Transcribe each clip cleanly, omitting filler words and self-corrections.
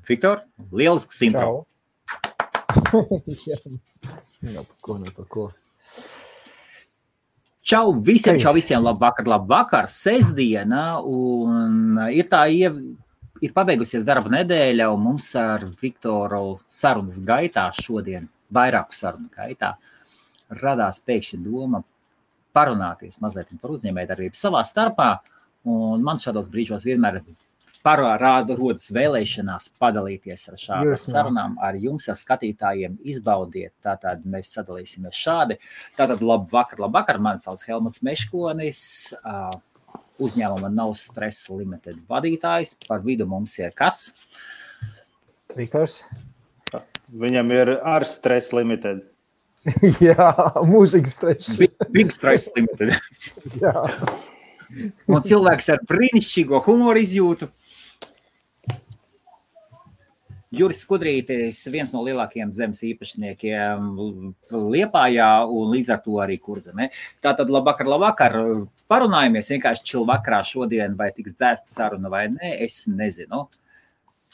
Viktor, lielisks intro. Par ko. Čau visiem, labvakar, sestdiena, un ir pabeigusies darba nedēļa, un mums ar Viktoru sarunas gaitā šodien, vairāku sarunu gaitā, radās pēkšņi doma parunāties mazliet par uzņēmējdarbību savā starpā, un man šādos brīžos vienmēr rodas vēlēšanās padalīties ar šādām sarunām ar jums, ar skatītājiem, izbaudiet. Tātad mēs sadalīsimies šādi. Tātad labvakar, mani sauc Helmuts Meškonis, uzņēmuma No Stress Limited vadītājs. Par vidu mums ir kas? Viktors. Viņam ir ar Stress Limited. Jā, mūžīgi stress. Big Stress Limited. Jā. Un cilvēks ar brīnišķīgo humoru izjūtu. Juris Skudrītis, viens no lielākajiem zemes īpašniekiem Liepājā un līdz ar to arī Kurzemē. Tātad labvakar. Parunājamies vienkārši čil vakarā šodien, vai tiks dzēsta saruna vai nē, es nezinu.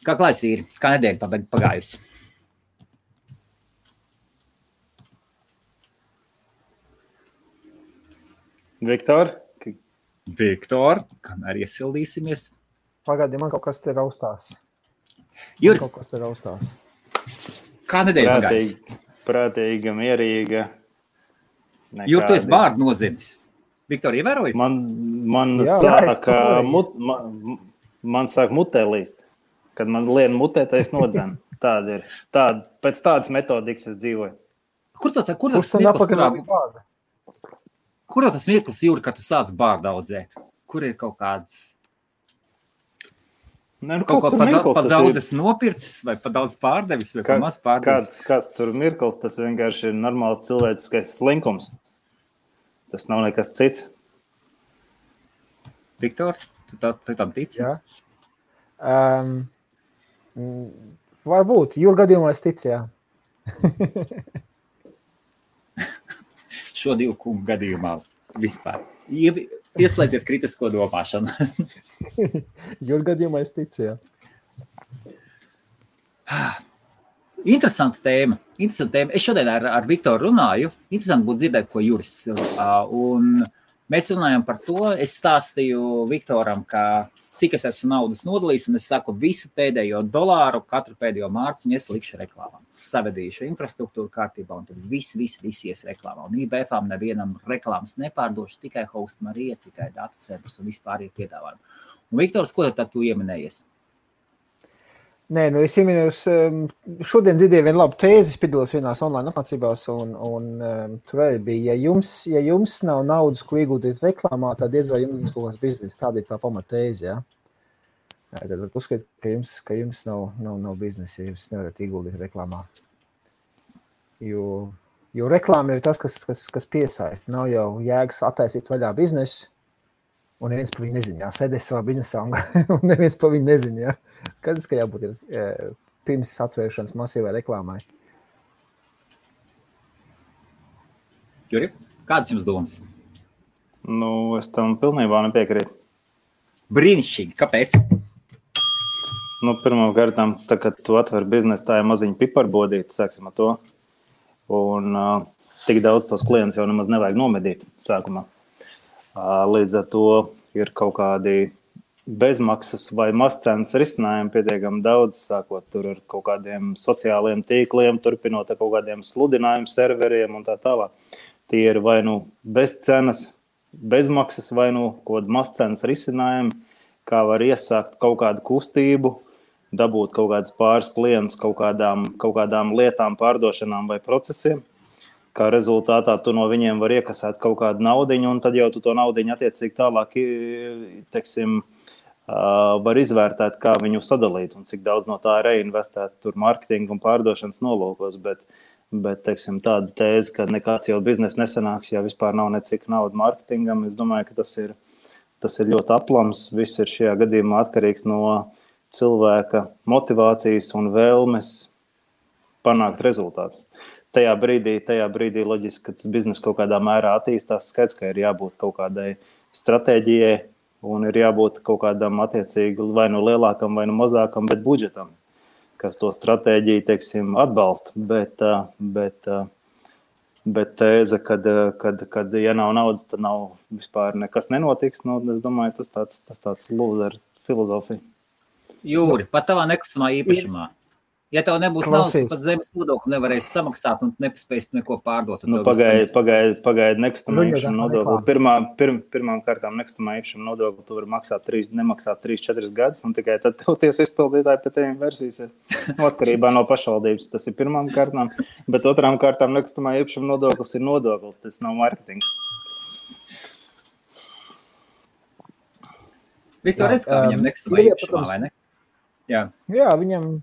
Kā klājas vīri? Kā nedēļa pagājusi? Viktor, kamēr iesildīsimies. Pagaidi, man kaut kas te raustās. Juri, kā nedēļa pagājusi? Prātīga, mierīga. Juri, tu esi bārdu nodzimis. Viktor, ievēroji? Man sāk mutē līst. Kad man lien mutē, tad es nodzenu. Tāda ir. Pēc tādas metodikas es dzīvoju. Kur tas mirklis, Juri, kad tu sāc bārdu audzēt? Kur ir kaut kāds... Kaut ko pa daudz esi nopircis, vai pa daudz pārdevis, vai pa maz pārdevis? Kāds tur mirklis, tas vienkārši ir normāls cilvēciskais slinkums. Tas nav nekas cits. Viktors, tu tam tici? Jā. Varbūt, Jūra gadījumā es ticu, jā. Šo divu kungu gadījumā vispār. Ieslēdziet kritisko domāšanu. Jūra gadījumā es ticu, jā. Interesanta tēma. Es šodien ar Viktoru runāju. Interesanti būtu dzirdēt, ko Juris. Un mēs runājam par to. Es stāstīju Viktoram, ka cik es esmu naudas nodalījis, un es saku visu pēdējo dolāru, katru pēdējo mārciņu es likšu reklāmām. Savedīšu infrastruktūru kārtībā, un tad visi ies reklāmā. Un IBF-ām nevienam reklāmas nepārdošu, tikai Host Marija, tikai datu centrus un vispār ir piedāvājumi. Un Viktors, ko tad tu ieminējies? Nē, es ieminējos, šodien dzirdēju vienu labu tēzi, piedalos vienās online apmācībās, un tur arī bija, ja jums nav naudas, ko iegūtīt reklāmā, tad diez vai jums kaut kāds bizness, tāda ir tā pamatēzi, jā. Tad var uzskatīt, ka jums nav biznesa, ja jūs nevarat ieguldīt reklāmā. Jo reklāma ir tas, kas piesaista. Nav jau jēgas attaisīt vaļā biznesu, un neviens par viņu nezina. Sēdēs savā biznesā, un neviens par viņu nezina. Skaidrs, ka jābūt pirms atvēršanas masīvai reklāmai. Juri, kādas jums domas? Es tam pilnībā nepiekrītu. Brīnišķīgi, kāpēc? Pirmām kārtām, tā, kad tu atver biznesu, tā ir maziņa piparbodīte, sāksim ar to. Un tik daudz tos klientus jau nemaz nevajag nomedīt sākumā. Līdz ar to ir kaut kādi bezmaksas vai mazcenas risinājumi pietiekami daudz, sākot tur ar kaut kādiem sociāliem tīkliem, turpinot ar kaut kādiem sludinājumu serveriem un tā tālāk. Tie ir vai bez cenas, bezmaksas vai kaut kādi mazcenas risinājumi, kā var iesākt kaut kādu kustību, dabūt kaut kādus pāris klientus kaut kādām lietām, pārdošanām vai procesiem. Kā rezultātā tu no viņiem var iekasēt kaut kādu naudiņu, un tad jau tu to naudiņu attiecīgi tālāk, var izvērtēt, kā viņu sadalīt, un cik daudz no tā reinvestēt tur marketinga un pārdošanas nolūkos, bet tādu tēzi, ka nekāds jau biznes nesanāks, ja vispār nav necik nauda marketingam, es domāju, ka tas ir ļoti aplams, viss ir šajā gadījumā atkarīgs no cilvēka motivācijas un vēlmes panākt rezultātus. Tajā brīdī loģiski, ka tas biznes kaut kādā mērā attīstās, skaidrs, ka ir jābūt kaut kādai stratēģijai un ir jābūt kaut kādam attiecīgi vai lielākam vai mazākam, bet budžetam. kas to stratēģiju, teiksim, atbalsta, bet tēze, kad ja nav naudas, tad nav vispār nekas nenotiks, nu, es domāju, tas tāds lūzer filozofija. Jūri, pat tavā nekustamā īpašumā. Ja tev nebūs naudas, pat zemes nodokli nevarēs samaksāt un nepaspēs neko pārdot. Nu, pagaid nekustamā īpašuma nodokli. Pirmām kārtām nekustamā īpašuma nodokli tu vari nemaksāt 3-4 gadus, un tikai tad tev tiesa izpildītāji pie tiem versijas atkarībā no pašvaldības. Tas ir pirmām kārtām, bet otrām kārtām nekustamā īpašuma nodoklis ir nodoklis, tas nav marketings. Viktor, redz, kā viņam nekustamā īpašumā, vai ne? Jā, viņam...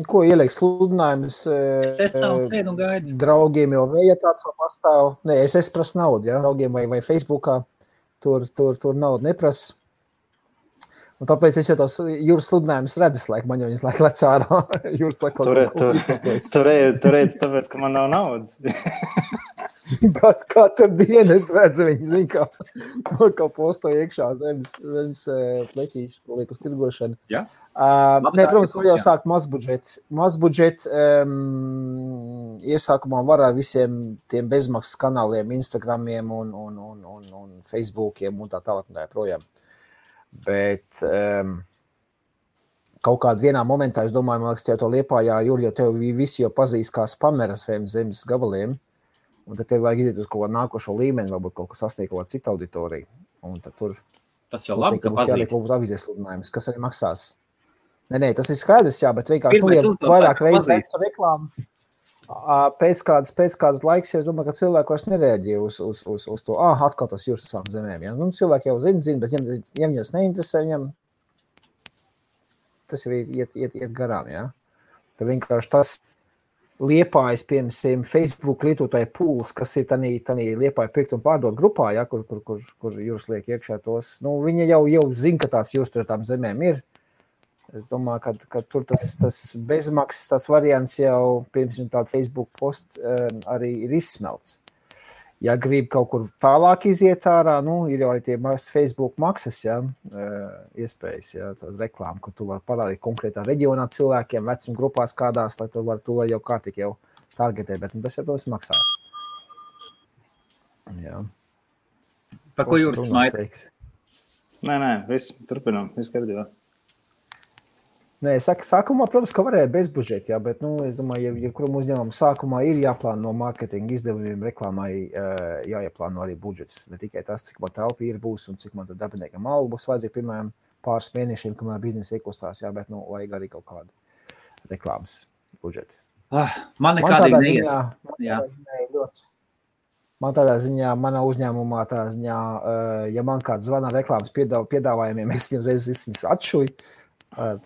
Ko ieliek sludinājumus draugiem jau vēja tāds vēl pastāv. Nē, es prasu naudu, ja, draugiem vai Facebookā. Tur naudu neprasa. Un tāpēc es jau tos jūras sludinājumus redzu, man jau viņas laik lec ārā. Tu redz, tāpēc, ka man nav naudas. Katru dienu es redzu viņu, zin, kā posto iekšā zemes pleķīšu, ko liek uz tirgošanu. Ja? Nē, protams, var jau sākt mazbudžet iesākumā var ar visiem tiem bezmaksas kanāliem, Instagramiem un Facebookiem un tā tālāk un tā projām. Bet kaut kādā vienā momentā, es domāju, man liekas, to Liepājā, Juri, jo tev visi jau pazīst kā spameras zemes gabaliem, un tad tev vajag iziet uz kaut kādu nākošo līmeni, varbūt kaut kas sasniegt kaut kādu citu auditoriju. Un tad tur... Tas jau labi, ka pazīst. Jāliek kaut avīzes sludinājums, kas arī maksās. Nē, tas ir skaidrs, jā, bet vienkārši vairāk reizes reklāmu. Pēc kādas laiks, es domāju, ka cilvēki vairs nereaģē uz to, atkal tas jūras savām zemēm. Ja? Nu, cilvēki jau zina, bet ja viņas neinteresē, viņam tas jau iet garām. Ja? Tad vienkārši tas Liepājas, piemēram, Facebook lietotāju pūles, kas ir tanī Liepāja pirkt un pārdot grupā, ja? kur jūras liek iekšā tos. Nu, viņi jau zina, ka tās jūras tur tām zemēm ir. Es domāju, ka tur tas bezmaksas, tas variants jau, piemēram, tāda Facebook post arī ir izsmelts. Ja grib kaut kur tālāk iziet ārā, ir jau arī tie Facebook maksas, ja, iespējas, ja, reklāma, kur tu vari parādīt konkrētā reģionā cilvēkiem, vecuma grupās kādās, lai tu vari jau kārtīgi jau targetēt, bet tas jau tos maksās. Jā. Par ko jūras smaida? Nē, viss, turpinām, viss kārtībā. Nē, sākumā, protams, ka varēja bez budžeta, jā, bet, es domāju, ja kuram uzņēmumu sākumā ir jāplāno mārketinga izdevumiem, reklāmai jāieplāno arī budžets. Ne tikai tas, cik man telpa ir būs un cik man tad darbiniekam algu būs vajadzīgi pirmajiem pāris mēnešiem, kamēr biznesa iekustās, jā, bet, vajag arī kaut kādu reklāmas budžeti. Man nekādīgi neiet. Man tādā ziņā, manā uzņēmumā tādā ziņā, ja man kāds zvana reklāmas piedāvājumiem, es viņas atšuju.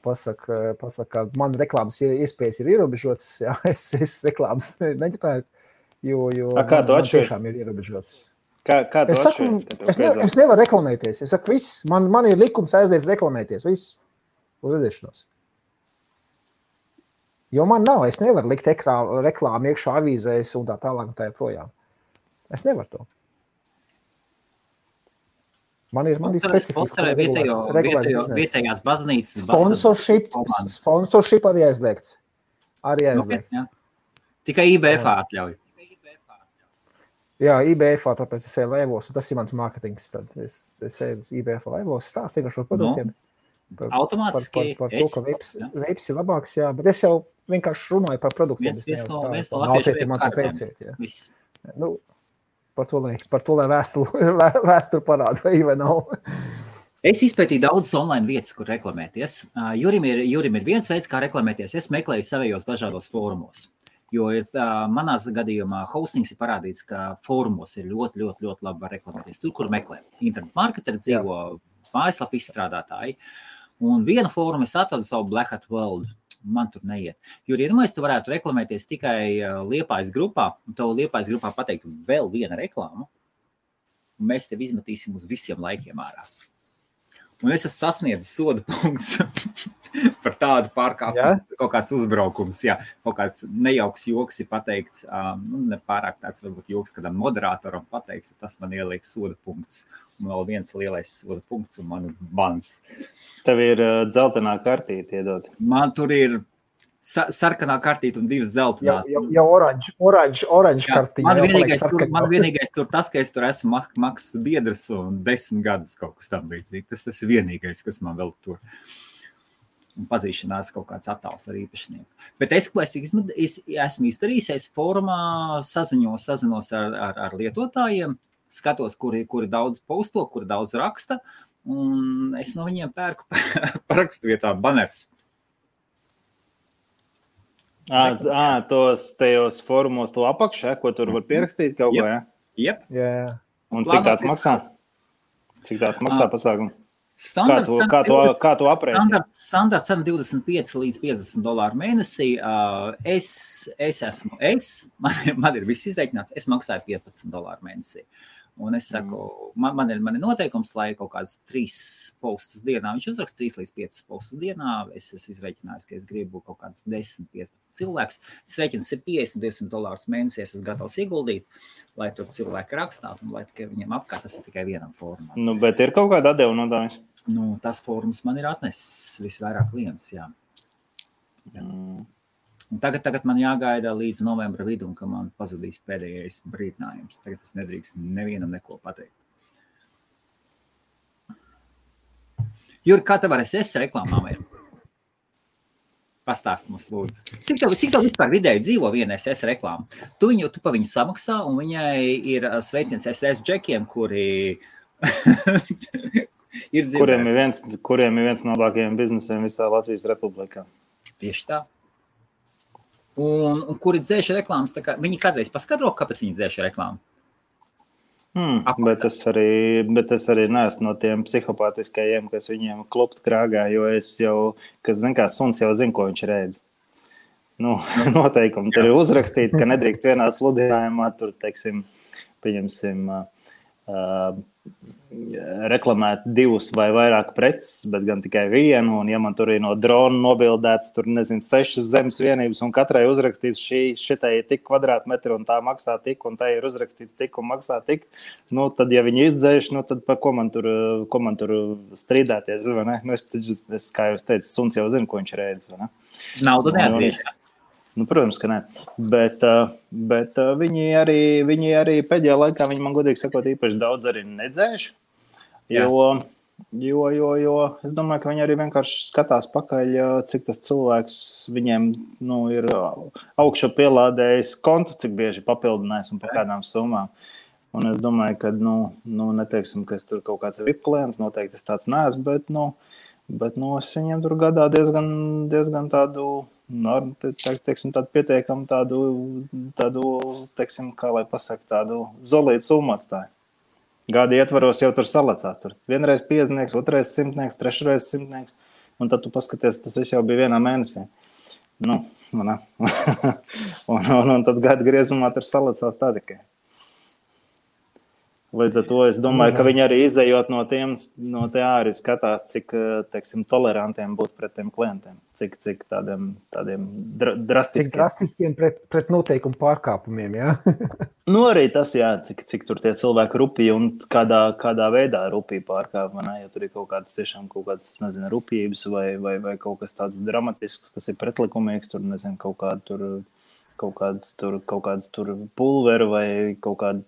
Pasaka, ka man reklāmas iespējas ir ierobežotas, jā, es reklāmas neķepēju, jo kā tu atšķiri? Tiešām ir ierobežotas. Kā tu atšķiri? Es nevaru reklamēties, es saku, viss, man ir likums aizliedz reklamēties, viss, uz redzēšanos. Jo man nav, es nevaru likt reklāmu iekšā avīzēs un tā tālāk un tā projām. Es nevaru to. Man ir specifiski vietējās baznīcas. Sponsorship arī aizliegts. Tikai IBF atļauj. Jā, IBF, tāpēc es eju laivos, un tas ir mans mārketings. Tad es eju IBF laivos, stāstu vienkārši par produktiem. Automātiski. Par to, ka veips ir labāks, jā, bet es jau vienkārši runāju par produktiem. Viens no latviešu Par to, lai vēsturi parāda, vai nav. Es izpētīju daudzas online vietas, kur reklamēties. Jurim ir viens veids, kā reklamēties. Es meklēju savējos dažādos fórumos. Jo manās gadījumā hostings ir parādīts, ka fórumos ir ļoti, ļoti, ļoti labi var reklamēties. Tur, kur meklē. Internet marketeri dzīvo, mājaslapu izstrādātāji. Un vienu fórumu es atradu savu Black Hat World. Man tur neiet. Jo, iedomājies, tu varētu reklamēties tikai Liepājas grupā, un tev Liepājas grupā pateikt vēl viena reklāma, un mēs tev izmetīsim uz visiem laikiem ārā. Un es esmu sasniedzis soda punkts. par tādu pārkāpumu, kaut kāds uzbraukums, jā, kaut kāds nejauks joks ir pateikts, ne pārāk tāds varbūt joks kādam moderātoram pateikts, tas man ieliek soda punkts, un vēl viens lielais soda punkts un man bans. Tev ir dzeltenā kartīte iedot. Man tur ir sarkanā kartīte un 2 dzeltenās. Jau oranž kartīte. Man vienīgais tur tas, ka es tur esmu maksas biedrs un 10 gadus kaut kas tam līdzīgi. Tas ir vienīgais, kas man vēl tur. Un pazīšanās kaut kāds attēls ar īpašnieku. Bet es esmu izdarījis, es fórumā sazinos ar lietotājiem, skatos, kuri daudz posto, kuri daudz raksta, un es no viņiem pērku parakstu vietā banerus. Tos tajos fórumos to apakšā, ko tur var pierakstīt kaut ko, ja? Jep. Jā. Un cik tāds maksā? Cik tāds maksā pasākumu? Kā tu aprēķini? Standarta cena $25 līdz $50 mēnesī. Man ir viss izreikināts, es maksāju $15 mēnesī. Un es saku, man ir noteikums, lai kaut kāds 3 postus dienā, viņš uzraksta 3 līdz 5 postus dienā, es izreikinājis, ka es gribu kaut kāds 10-15 cilvēks, es reiķinu $50-200 mēnesī, es esmu gatavs ieguldīt, lai tur cilvēki rakstātu, un lai tikai viņiem apkārt, tas ir tikai vienam fórumam. Nu, bet ir kaut kāda atdeva no tā? Nu, tas fórums man ir atnesis visvairāk klientus, jā. Un tagad man jāgaida līdz novembra vidum, ka man pazudīs pēdējais brīdinājums. Tagad es nedrīkst nevienam neko pateikt. Juri, kā tev ar SS reklāmām ir? Pastāst mums, lūdzu. Cik tev vispār vidēji dzīvo viena SS reklāma? Tu pa viņu samaksā, un viņai ir sveiciens SS džekiem, kuri ir dzirdēti. Kuriem ir viens no labākajiem biznesiem visā Latvijas Republikā. Tieši tā. Un kuri dzēša reklāmas, tā kā viņi kādreiz paskatro, kāpēc viņi dzēša reklāmu? Bet es arī neesmu no tiem psihopātiskajiem, kas viņiem klopt krāgā, jo es jau, suns jau zinu, ko viņš redz. Nu, noteikumi tur ir uzrakstīti, ka nedrīkst vienā sludinājumā, tur, teiksim, pieņemsim, reklamēt 2 vai vairāk preces, bet gan tikai vienu, un ja man tur ir no drona nobildēts, tur, 6 zemes vienības, un katrai uzrakstīts šitai ir tik kvadrātmetri, un tā maksā tik, un tā ir uzrakstīts tik, un maksā tik, nu, tad, ja viņi izdzēš, nu, tad par ko man tur strīdēties, vai ne? Nu, es kā jūs teicu, suns jau zinu, ko viņš redz, vai ne? Naudu neatgriež, jā. Nu, protams, ka ne. Bet viņi arī pēdējā laikā, viņi man godīgi sakot, īpaši daudz arī nedzēš, jo es domāju, ka viņi arī vienkārši skatās pakaļ, cik tas cilvēks viņiem, nu, ir augšu pielādējis kontu, cik bieži papildinājis un par kādām summām. Un es domāju, ka, neteiksim, ka es tur kaut kāds VIP klients, noteikti es tāds neesmu, bet es viņiem tur gadā diezgan tādu, teiksim, tādu pietiekam tādu, teiksim, kā lai pasaka, tādu zolītu summu atstāju. Gada ietvaros jau tur salacās. Tur vienreiz 50, otrais 100, trešreiz 100, un tad tu paskaties, tas viss jau bija vienā mēnesī. Nu, un tad gada griezumā tur salacās tā tikai. Līdz ar to es domāju, ka viņi arī izējot no te arī skatās, cik, teiksim, tolerantiem būt pret tiem klientiem, cik tādiem drastiskiem. Cik drastiskiem pret noteikumu pārkāpumiem, jā? Nu, arī tas, jā, cik tur tie cilvēki rupīgi un kādā veidā rupīgi pārkāp, ne? Ja tur ir kaut kādas, nezinu, rupības vai kaut kas tāds dramatisks, kas ir pretlikumīgs, tur, nezinu, kaut kāds tur pulveru vai kaut kādu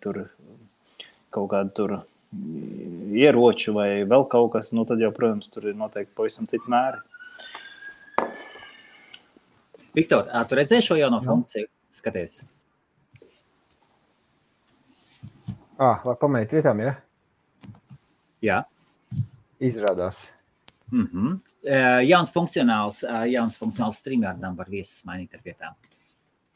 tur ieroču vai vēl kaut kas, nu tad jau, protams, tur ir noteikti pavisam citi mēri. Viktor, tu redzēji šo jauno funkciju? Skaties. Var pamēt vietām, ja? Jā. Izrādās. Jauns funkcionāls StreamYardam var viesus mainīt ar vietām.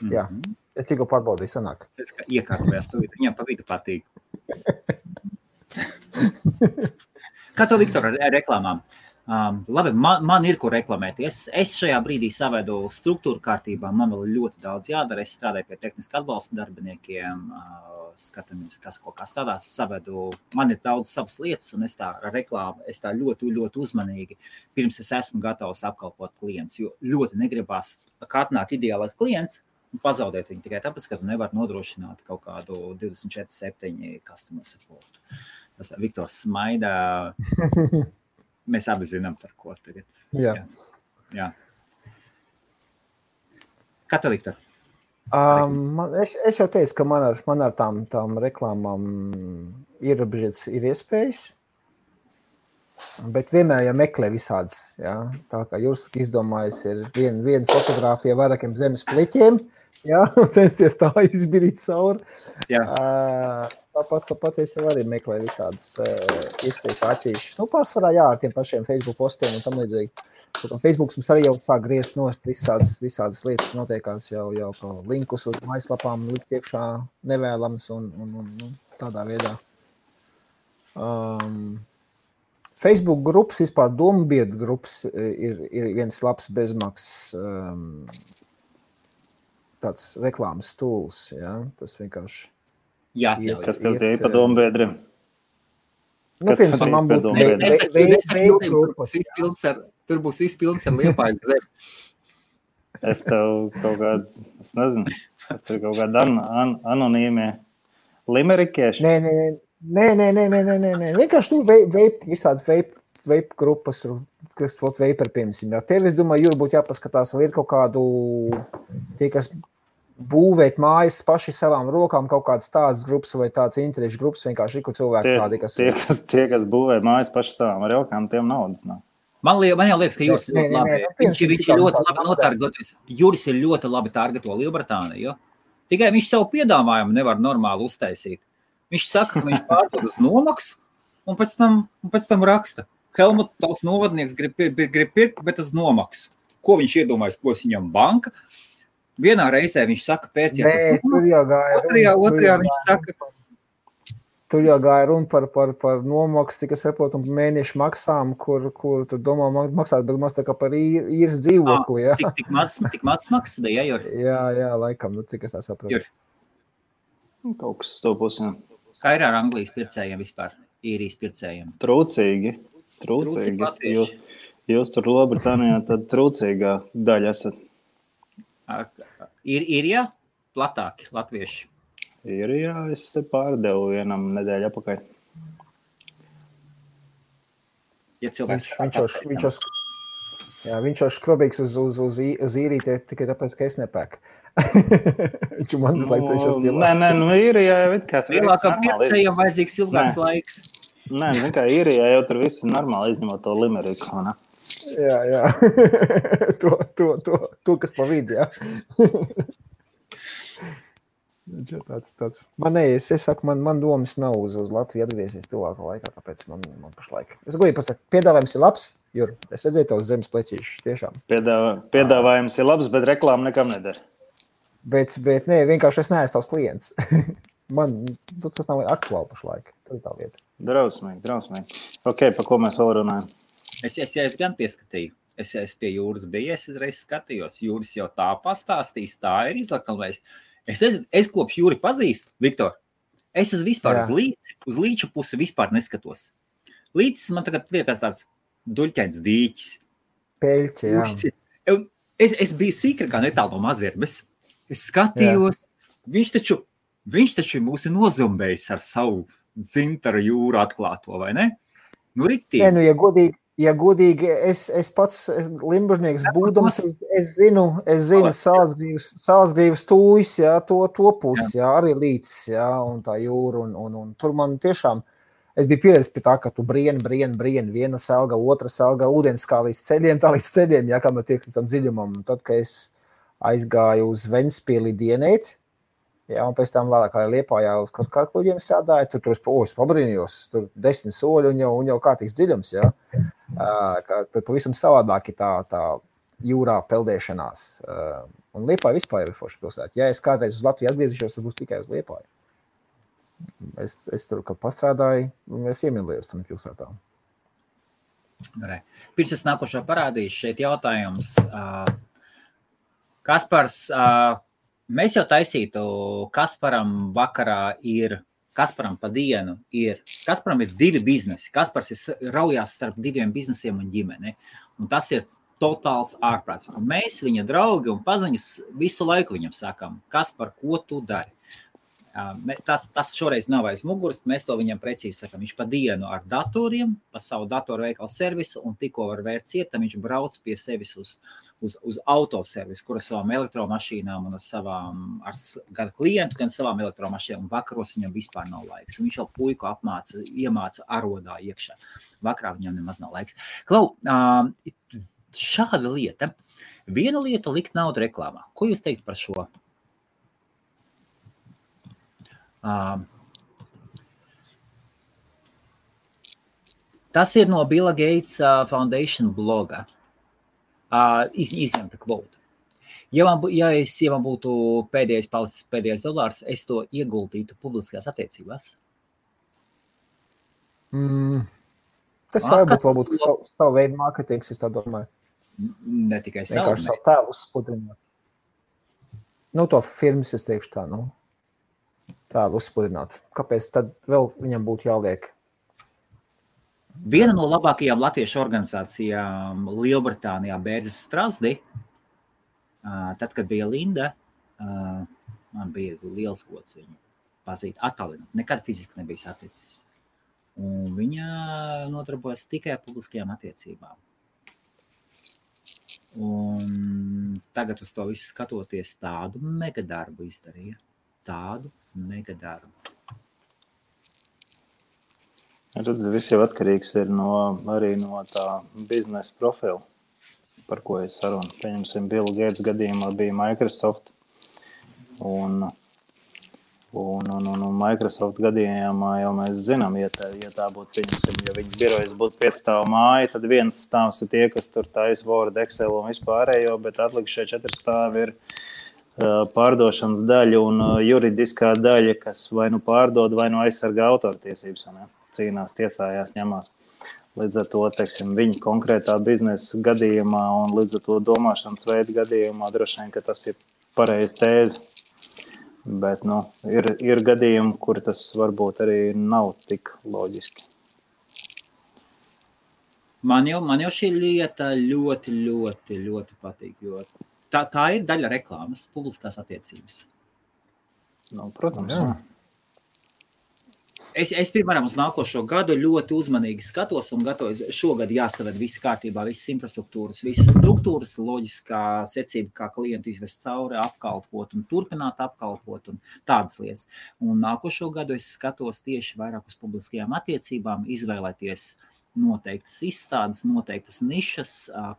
Jā, es tikko pārbaudīju, sanāk. Iekārtojās, viņam pa vidu patīk. Kā to, Viktor, ar reklāmām? Labi, man ir ko reklamēties. Es šajā brīdī savedu struktūru kārtībā. Man vēl ļoti daudz jādara. Es strādāju pie tehniska atbalsta darbiniekiem. skatāmies, kas ko kā stādās, savedu. Man ir daudz savas lietas, un es tā reklāmu, es tā ļoti, ļoti uzmanīgi, pirms es esmu gatavs apkalpot klientus, jo ļoti negribās, kā atnāk ideālais klients, un pazaudēt viņu tikai tāpēc, ka tu nevar nodrošināt kaut kādu 24/7 customer support. Tas Viktors smaida, mēs abi zinām, par ko tagad. Jā. Kā tev, Viktor? Es jau teicu, ka man ar tām reklāmām ir iespējas, bet vienmēr jau meklē visādas. Ja? Tā kā jūs izdomājat, ir viena fotogrāfija vairākiem zemes pliķiem, ja? Un censties tā izbirīt cauri. Tāpat es jau arī meklēju visādas iespējas atšķirīšas. Pārsvarā ar tiem pašiem Facebook postiem un tam līdzīgi. Facebooks mums arī jau sāk griezt nost visādas lietas notiekās jau linkus uz mājaslapām likt iekšā nevēlams un tādā veidā. Facebook grupas, vispār domu biedru grupas ir viens labs bezmaksas tāds reklāmas tools, ja? Tas vienkārši kas tev tie pa domu biedriem? Man būtu tur būs izpildns ar Liepājas zemi. Es tev kaut kāds, es nezinu, kaut kāda anonīmie limerikieši. Nē. Vienkārši visādi vape grupas, kas veiper, piemēram. Tev, es domāju, Jūra, būtu jāpaskatās, vai ir kaut kādu, tie, kas būvēt mājas paši savām rokām, kaut kādas tādas grupas vai tādas interešu grupas, vienkārši ir, kur cilvēki tādi, kas... Tie, kas būvē mājas paši savām rokām, tiem naudas nav. Man jau liekas, ka Juris ir labi. Viņš ir ļoti labi notargetojas. Juris ir ļoti labi targeto Lielbritāniju. Tikai viņš savu piedāvājumu nevar normāli uztaisīt. Viņš saka, ka viņš pārdod uz nomaksu un pēc tam raksta. Helmut, tavs novadnieks grib pirkt, bet uz nomaksu. Ko viņš iedomājas, ko viņam banka? Vienā reizē viņš saka, pērciet uz nomaksu. Otrajā viņš saka... Tur jau gāja runa par nomaksu, cik es saprotu, un mēnešu maksām, kur tu domā maksāt, bet maz tā kā par īres dzīvokli. Ja? Tik maz maksas bija, Juri? Jā, laikam, cik es tā saprotu. Juri. Kaut kas to pusi, jā. Kā ir ar Anglijas pircējiem vispār, īrijas pircējiem? Trūcīgi. Jūs tur Lielbritānijā tad trūcīgā daļa esat. Ir platāki latvieši? Jā, es te pārdevu vienam nedēļu apakaļ. Viņš jau skrobīgs uz īrīti tikai tāpēc, ka es nepēku. Viņš man cenšas pielāst. Nē, īrijā jau it kā tur viss normāli. Pircējiem vajadzīgs ilgāks laiks. Nē, kā īrijā jau tur viss normāli, izņemot to limeriku, ne? Jā. to, kas pa vidi, jā. Tāds. Es saku, man domas nav uz Latviju atgriezies tuvākā laikā, tāpēc man pašlaik. Es goju pasaka, piedāvājums ir labs, Jur, es redzēju tavus zemes pleķīšus, tiešām. Piedāvājums ir labs, bet reklāma nekam nedara. Bet nē, vienkārši es neesmu tavs klients. Man tas nav aktuāli pašlaik, tur ir tā lieta. Drausmīgi. Ok, pa ko mēs vēl runājam? Es gan pieskatīju. Es pie Jūras biju, es uzreiz skatījos. Jūras jau tā pastāstīs, tā ir izlakalmējis. Es kopš Jūri pazīstu, Viktor, es vispār uz līču pusi vispār neskatos. Līčs man tagad liekas tāds duļķains dīķis. Peļķi, jā. Es biju sīkrākā netālu no mazierbes. Es skatījos, viņš taču mūs ir nozumbējis ar savu dzintaru Jūru atklāto, vai ne? Nu, riktīgi. Nē, ja godīgi, es pats limbužnieks būdams, es zinu Sālsgrīvas tūjas, jā, to pusi, jā, arī līdz, jā, un tā Jūra, un tur man tiešām, es biju pieredzis pie tā, ka tu brien, viena selga, otra selga, ūdens kā līdz ceļiem, jā, kā man tiek līdz tam dziļumam, un tad, kad es aizgāju uz Ventspili dienēt, jā, un pēc tam vēlāk Liepājā uz kaut kā kuģiem strādāju, tur es pabrīnījos, tur 10 soļi un jau kārtīgs dziļums, jā. Tad pavisam savādāk ir tā jūrā peldēšanās. Un Liepāja vispār ir forša pilsēta. Ja es kādreiz uz Latviju atgriezīšos, tad būs tikai uz Liepāju. Es tur, kad pastrādāju, es iemīlējos tam pilsētām. Pirms es nākošo parādīšu, šeit jautājums. Kaspars, Mēs jau taisītu, Kasparam vakarā ir, Kasparam pa dienu ir, Kasparam ir 2 biznesi. Kaspars ir raujās starp 2 biznesiem un ģimeni. Un tas ir totāls ārprāts. Un mēs, viņa draugi un paziņas, visu laiku viņam sakām, Kaspar, ko tu dari? Tas šoreiz nav aiz muguras, mēs to viņam precīzi sakām. Viņš pa dienu ar datoriem, pa savu datoru veikalu servisu un tikko var vērt ciet, viņš brauc pie sevis uz autoservisu, kur ar savām elektromašīnām un ar savām, gan klientu, gan savām elektromašīnām. Un vakaros viņam vispār nav laiks. Un viņš jau puiku iemāca arodā iekšā. Vakarā viņam nemaz nav laiks. Klau, šāda lieta. Viena lieta likt naudu reklāmā. Ko jūs teikt par šo? Tas ir no Billa Gates Foundation bloga. Izņemta kvota. Ja man būtu pēdējais dolārs, es to ieguldītu publiskajās attiecībās. Tas varbūt savu veidu mārketings, es tā domāju. Ne tikai savu. Vienkārši savu tēlu uzspudrināt. To firmas es teikšu tā, tēlu uzspudrināt. Kāpēc tad vēl viņam būtu jāliek? Viena no labākajām latviešu organizācijām Lielbritānijā Bērzes Strasdi, tad, kad bija Linda, man bija liels gods viņu pazīt, attālināt. Nekad fiziski nebija saticis. Un viņa nodarbojas tikai ar publiskajām attiecībām. Un tagad uz to visu skatoties tādu megadarbu izdarīja. Tādu megadarbu. Redz, viss jau atkarīgs ir arī no tā biznesa profila, par ko es sarunu. Pieņemsim, Bill Gates gadījumā bija Microsoft. Un Microsoft gadījumā jau mēs zinām, ja tā būtu, pieņemsim, ja viņa birojas būtu 5 stāvu māja, tad viens stāvs ir tie, kas tur taisa Word, Excel un vispārējo, bet atlikušie 4 stāvi ir pārdošanas daļa un juridiskā daļa, kas vai nu pārdod, vai nu aizsargā autortiesības, cīnās, tiesājās, ņemās. Līdz ar to, teiksim, viņa konkrētā biznesa gadījumā un līdz ar to domāšanas veidu gadījumā droši vien, ka tas ir pareiz tēze. Bet, ir gadījumi, kur tas varbūt arī nav tik loģiski. Man jau šī lieta ļoti, ļoti, ļoti patīk, jo tā ir daļa reklāmas, publiskās attiecības. Protams. Jā. Es piemēram, uz nākošo gadu ļoti uzmanīgi skatos un gatavoju. Šogad jāsaved visi kārtībā, visas infrastruktūras, visas struktūras, loģiskā secība, kā klientu izvest cauri, apkalpot un turpināt apkalpot un tādas lietas. Un nākošo gadu es skatos tieši vairāk uz publiskajām attiecībām, izvēlēties noteiktas izstādes, noteiktas nišas,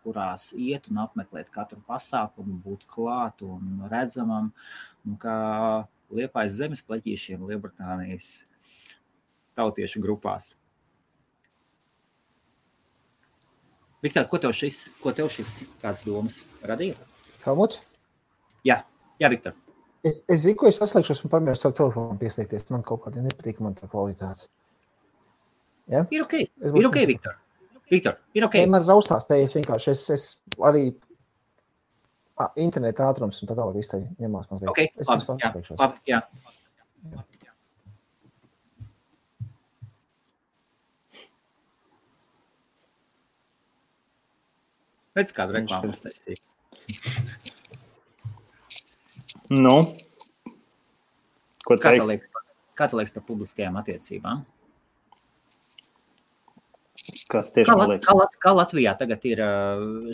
kurās iet un apmeklēt katru pasākumu, būt klāt un redzamam, kā Liepājas zemes pleķīšiem Lielbritānijas tautiešu grupās. Viktor, ko tev šis kāds domas radīja? Helmut? Jā, Viktor. Es zinu, ko es atslēgšos un pamēģināšu savu telefonu pieslēgties. Man kaut kādā nepatīk man tā kvalitāte. Ja? Ir ok, Viktor. Viktor, ir ok. Man raustās te, vienkārši es arī interneta ātrums un tā tālāk viss te ņemās mazliet. Ok, labi, jā. Redz, kādu reklāmu uztaistīja. Ko teiks? Kā tu liekas par publiskajām attiecībām? Kas tieši man liekas? Kā Latvijā tagad ir,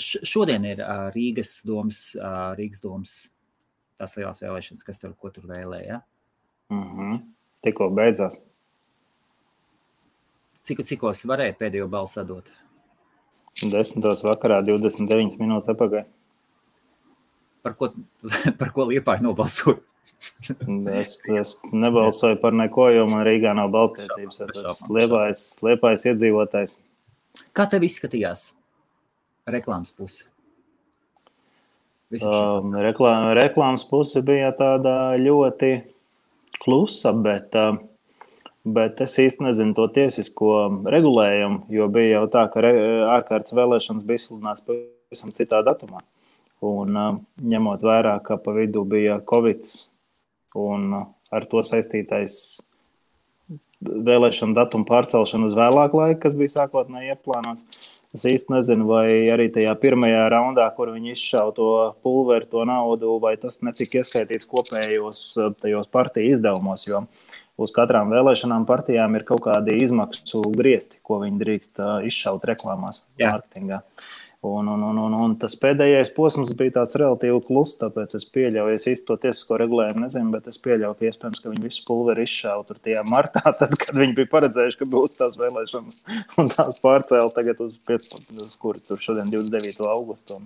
šodien ir Rīgas domas tās lielās vēlēšanas, ko tur vēlēja? Tikko beidzās. Cikos varēja pēdējo balsu sadot? 10. vakarā, 29 minūtes apakaļ. Par ko Liepāja nobalsoja? Es nebalsoju par neko, jo man Rīgā nav balstiesības. Es esmu Liepājas iedzīvotājs. Kā tev izskatījās reklāmas puse? Reklāmas puse bija tāda ļoti klusa, bet es īsti nezinu to tiesisko regulējumu, jo bija jau tā, ka ārkārtas vēlēšanas bija izsludināts pavisam citā datumā. Un ņemot vērā, ka pa vidu bija Covid un ar to saistītais vēlēšanu datumu pārcelšanu uz vēlāku laiku, kas bija sākotnēji ieplānots. Es īsti nezinu, vai arī tajā pirmajā raundā, kur viņi izšauja to pulveri, to naudu, vai tas netika ieskaitīts kopējos tajos partiju izdevumos, jo uz katrām vēlēšanām partijām ir kaut kādi izmaksu griezti, ko viņi drīkst izšaut reklāmās, mārketingā. Un tas pēdējais posms bija tāds relatīvi kluss, tāpēc es pieļauju, es īsti to tiesisko regulējumu nezinu, bet es pieļauju, ka iespējams, ka viņi visu pulveri izšauja tur tajā martā, tad, kad viņi bija paredzējuši, ka būs tās vēlēšanas un tās pārcēla tagad uz kuri tur šodien 29. augustu.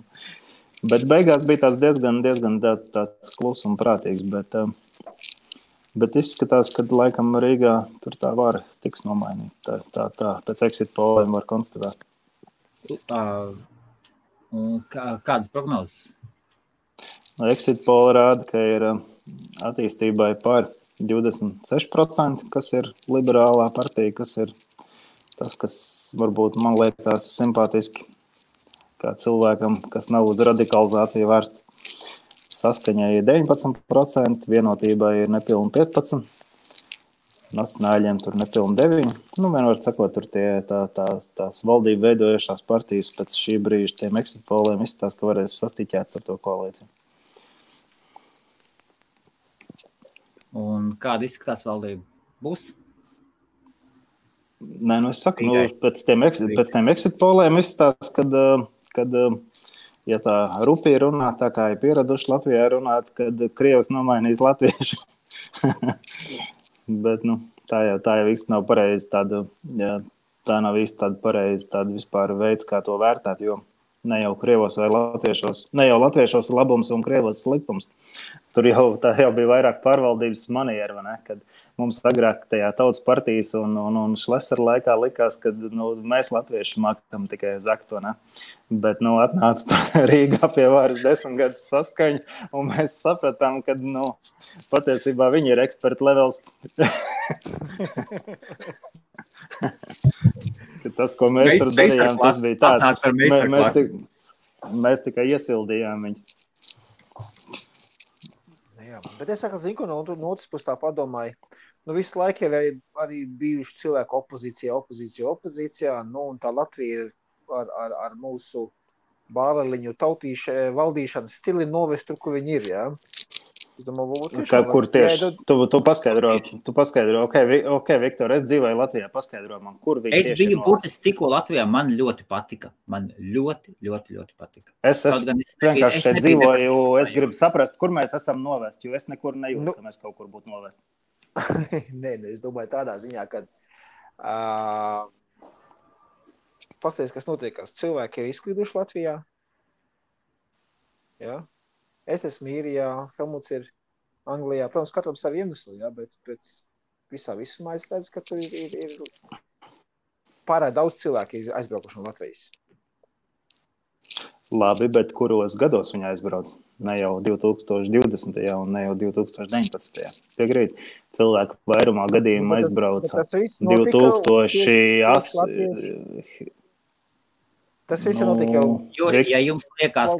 Bet beigās bija tāds diezgan tāds kluss un prātīgs, bet izskatās, ka laikam Rīgā tur tā vara tiks nomainīta. Tā pēc exit poliem var konstatēt. Kādas prognozes? Exit poll rāda, ka ir attīstībai par 26%, kas ir liberālā partija, kas ir tas, kas varbūt man liekas simpātiski kā cilvēkam, kas nav uz radikalizāciju vērsts. Saskaņai ir 19%, vienotībai ir nepilni 15%, nacionāļiem tur nepilni 9%. Vienmēr sakot, tur tās valdību veidojušās partijas pēc šī brīža tiem exit polliem izskatās, ka varēs sastiķēt ar to koalīciju. Un kāda izskatās valdība? Būs? Nē, es saku, pēc tiem exit polliem izskatās, kad ja tā rupī runā, tā kā ir pieraduši Latvijā runāt, kad Krievs nomainīs latviešu. Bet tā jau īsti nav pareizi tā nav īsti tāda pareizi tāda vispār veids, kā to vērtēt, jo ne jau Krievos vai latviešos, ne jau latviešos ir labums un Krievos sliktums. Tur tā jau bija vairāk pārvaldības maniera, vai ne? Kad mums agrāk tajā tautas partijas un Šlesera laikā likās, ka mēs latvieši mākam tikai zakt, vai ne? Bet atnāca Rīgā pie varas 10 gadus saskaņu, un mēs sapratām, ka patiesībā viņi ir eksperti levels. Tas, ko mēs tur darījām, tas bija tāds. Mēs tikai iesildījām viņus. Jā, bet es saku, zinu, no otras puses tā padomāju, visu laiku jau arī bijuši cilvēku opozīcijā, un tā Latvija ir ar mūsu bāreliņu valdīšanas stili novest tur, kur viņi ir, jā. Es domāju, kur tieši? Tu paskaidro, ok, Viktor, es dzīvoju Latvijā, paskaidro man, kur viņi tieši ir. Es biju burtiski tikko Latvijā, man ļoti patika. Man ļoti patika. Es vienkārši šeit dzīvoju, es gribu saprast, kur mēs esam novest, jo es nekur nejūtu, ka mēs kaut kur būtu novest. Nē, es domāju tādā ziņā, ka pasties, kas notiekās. Cilvēki ir izklīduši Latvijā. Jā. Es esmu Īrijā, Helmuts ir Anglijā. Protams, katram savu iemeslu, jā, bet visā visumā es redzu, ka tur ir pārāk daudz cilvēku aizbraukuši no Latvijas. Labi, bet kuros gados viņi aizbrauc? Ne jau 2020. un ne jau 2019. Piekrīt, cilvēku vairumā gadījumā aizbrauca 2008. Tas viss ir notika jau. Jo, ja jums liekas,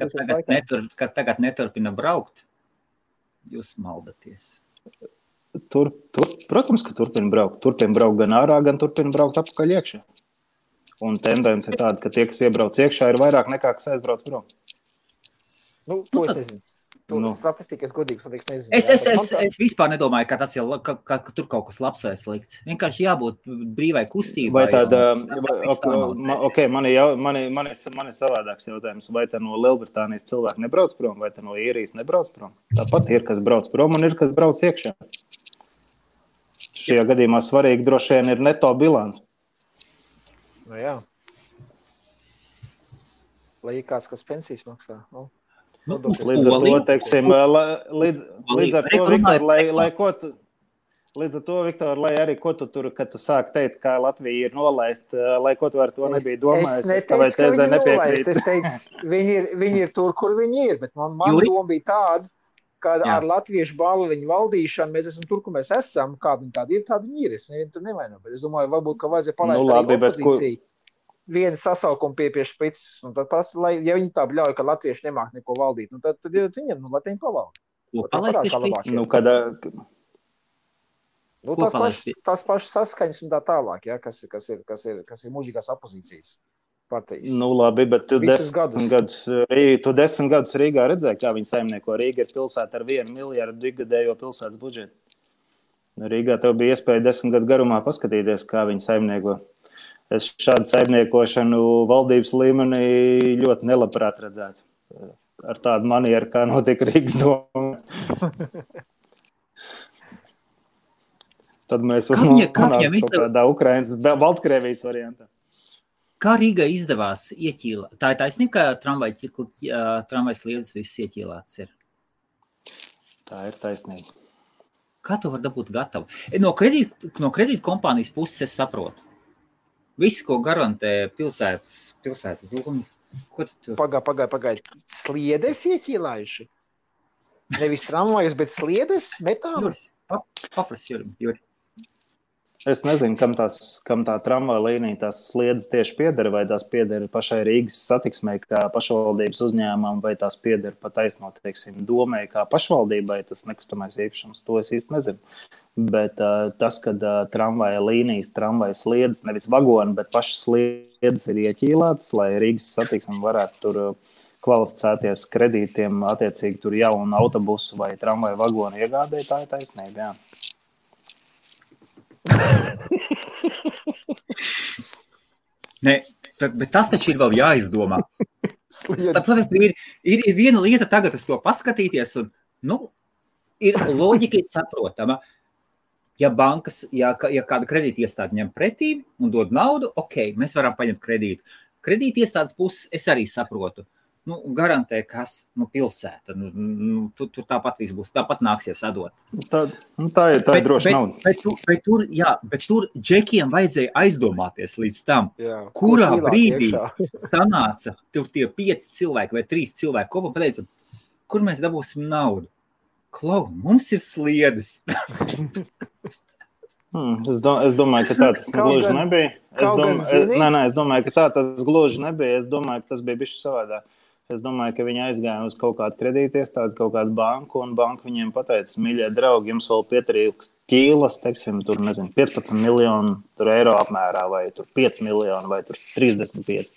ka tagad neturpina braukt, jūs maldaties. Protams, ka turpina braukt. Turpina braukt gan ārā, gan turpina braukt apakaļ iekšā. Un tendence ir tāda, ka tie, kas iebrauc iekšā, ir vairāk nekā, kas aizbrauc prom. To es nezinu. Statistikas godīgs, nezinu. Es vispār nedomāju, ka tas ka tur kaut kas labs vai slikts. Vienkārši jābūt brīvai kustībai. Vai tāda, man ir savādāks jautājums. Vai tā no Lielbritānijas cilvēki nebrauc prom, vai tā no Īrijas nebrauc prom? Tāpat ir, kas brauc prom un ir, kas brauc iekšā. Šajā gadījumā svarīgi droši vien ir neto bilants. Jā. Lai ir kāds, kas pensijas maksā, Līdz ar to, teiksim, līdz ar to, Viktor, lai arī ko tu tur, kad tu sāk teikt, kā Latvija ir nolaist, lai ko tu ar to nebija domājis. Es neteicu, ka viņi nolaist. Es teicu, viņi ir tur, kur viņi ir, bet man doma bija tāda, ka ar latviešu bāliņu valdīšanu mēs esam tur, kur mēs esam, kādi viņi tādi ir, tādi viņi ir. Es nevienu tur nevainu, bet es domāju, varbūt, ka vajadzēja palaist arī opozīciju. viena sasaukuma pie špicas, un tad pats, ja viņi tā bļauj, ka latvieši nemāk neko valdīt, nu tad viņiem, lai viņi pavalda. Ko palaist pie špicas? Nu, kad, Nu, Ko palaist pie? tās pašas saskaņas un tā tālāk, ja, kas ir mūžīgās opozīcijas partijas. nu labi, bet tu Visus 10 gadus Rīgā redzēji, kā viņi saimnieko. Rīga ir pilsēta ar 1 miljardu ikgadējo pilsētas budžetu. Rīgā tev bija iespēja 10 gadu garumā paskatīties, kā viņi saimnieko. Es šādu saimniekošanu valdības līmenī ļoti nelabprāt redzētu. Ar tādu manieru, kā notika Rīgas doma. Tad mēs varam nonākt kādā Ukrainas, Baltkrievijas variantā. Kā Rīgai izdevās ieķīlāt? Tā ir taisnība, ka tramvajs liedas viss ieķīlāts ir. Tā ir taisnība. Kā to var dabūt gatavu? No kredīt kompānijas puses es saprotu. Visu, ko garantē pilsētas doma. Ko tu? Pagaid. Sliedes ieķīlājuši? Nevis tramvajus, bet sliedes metāli? Juris, paprasti, Juri. Es nezinu, kam tā tramvaja līnija, tās sliedas tieši pieder, vai tās pieder pašai Rīgas satiksmei kā pašvaldības uzņēmumam, vai tās pieder pat taisnot, teiksim, domai kā pašvaldībai, tas nekustamais īpašums, to es īsti nezinu. Bet tas, kad tramvaja līnijas, tramvaja sliedas, nevis vagoni, bet pašas sliedas ir ieķīlātas, lai Rīgas satiksme varētu tur kvalificēties kredītiem, attiecīgi tur jaunu autobusu vai tramvaja vagonu iegādē, tā ir taisnība, jā. Nē, bet tas taču ir vēl jāizdomā. Saprotiet, ir viena lieta tagad uz to paskatīties, un, ir loģika saprotama. Ja bankas, ja kāda kredīta iestāde ņem pretī un dod naudu, ok, mēs varam paņemt kredītu. Kredīta iestādes puses es arī saprotu. Garantē, kas, pilsēta. Tur tāpat viss būs, tāpat nāksies atdot. Tā ir droši nauda. Bet tur džekiem vajadzēja aizdomāties līdz tam, Jā, kurā brīdī sanāca tur tie 5 cilvēki vai 3 cilvēki kopā pateica, kur mēs dabūsim naudu. Klau, mums ir sliedes. Es domāju, ka tā tas gluži nebija. Es domāju, ka tā tas gluži nebija. Es domāju, ka tas bija bišķi savādāk. Es domāju, ka viņi aizgāja uz kaut kādu kredītiestādi, kaut kādu banku, un banka viņiem pateica, mīļie draugi, jums vēl pietrūkst ķīlas, teiksim, tur, 15 miljonu eiro apmērā, vai tur 5 miljoni, vai tur 35.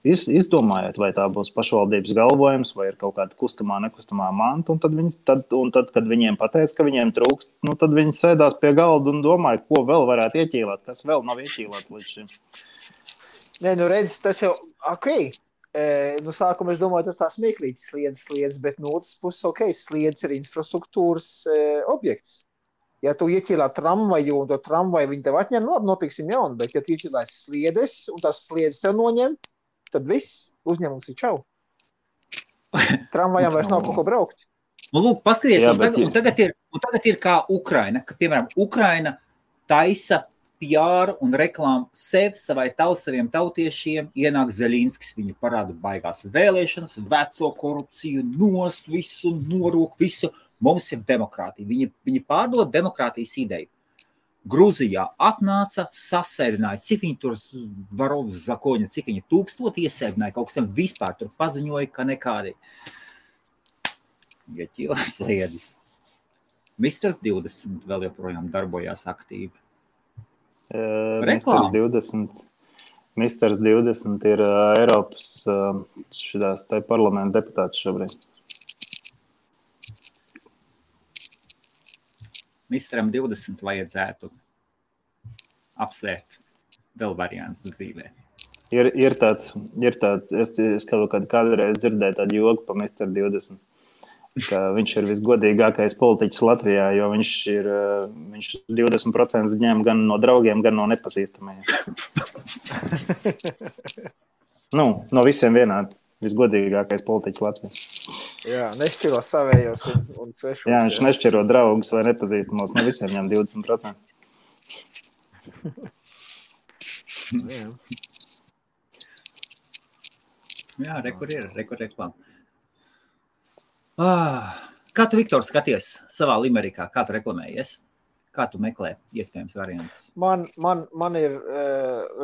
Izdomājiet, vai tā būs pašvaldības galvojums, vai ir kaut kāda kustamā, nekustamā manta, un tad, kad viņiem pateica, ka viņiem trūkst, tad viņi sēdās pie galda un domāja, ko vēl varētu ieķīlāt, kas vēl nav ieķīlāt līdz šim. Nē, redz, tas jau, ok. Sākumā es domāju, tas tā smieklīgs sliedas, bet no otras puses, ok, sliedas ir infrastruktūras objekts. Ja tu ieķīlā tramvaju un to tramvaju viņi tev atņem, labi, nopirksim jaunu, bet ja tu ieķīlās sliedes un tās sliedes tev noņem, tad viss uzņēmums ir čau. Tramvajām vairs nav kaut ko braukt. Lūk, paskaties, un tagad ir kā Ukraina, ka, piemēram, Ukraina taisa PR un reklāmu savai saviem tautiešiem, ienāk Zeļinskis, viņi parāda baigās vēlēšanas, veco korupciju, nost visu, norūk visu. Mums ir demokrātija. Viņi pārdod demokrātijas ideju. Gruzijā atnāca, sasēdināja, cik viņi tur Varovs Zakoņa, cik viņi 1000 iesēdināja, kaut kas tam vispār tur paziņoja, ka nekādi. Ieķīlās sliedas. Misters 20 vēl joprojām darbojās aktīvi. Misters 20 ir Eiropas šitās te parlamenta deputāts šobrīd. Misteram 20 vajadzētu apsvērt vēl variants dzīvē. Ir tāds, es kādreiz dzirdēju tādu joku pa Mister 20. Ka viņš ir visgodīgākais politiķis Latvijā, jo viņš 20% ņem gan no draugiem, gan no nepazīstamajiem. No visiem vienādi. Visgodīgākais politiķis Latvijā. Jā, nešķiro savējos un svešos. Jā, viņš nešķiro draugus vai nepazīstamos, no visiem ņem 20%. Jā, rekur reklāma. Kā tu, Viktor, skaties savā Limerikā? Kā tu reklamējies? Kā tu meklē iespējams variantus? Man ir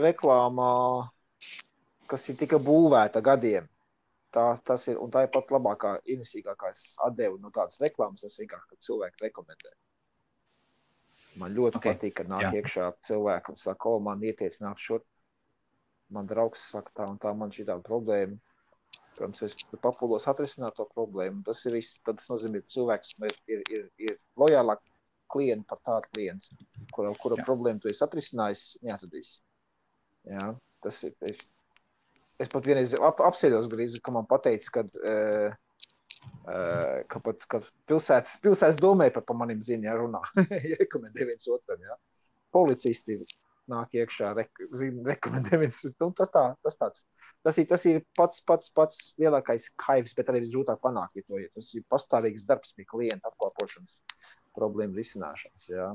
reklāmā, kas ir tika būvēta gadiem. Tas ir, un tā ir pat labākā, ienesīgākā atdevu no tādas reklāmas, tas vienkārši, kad cilvēki rekomendē. Man ļoti patīk, kad nāk iekšā cilvēki un saka, man ieteic nāk šur. Man draugs saka tā un tā, man šī tāda problēma. Protams, es papūlos atrisināt to problēmu. Tas ir viss, tad tas nozīmē, ka cilvēks ir lojālāk klienti par tādu klientu, kura problēmu tu esi atrisinājis, neatradīs. Jā, tas ir. Es pat vienreiz apsēdos grīzi, ka man pateica, ka pilsētas domē par manim zina, ja runā. Rekomendē viens otram, jā. Policisti nāk iekšā, rekomendē viens otram. Tas ir pats lielākais kaivs, bet arī visgrūtāk panākt, ja tas ir pastāvīgs darbs pie klienta apkalpošanas problēmu risināšanas, jā.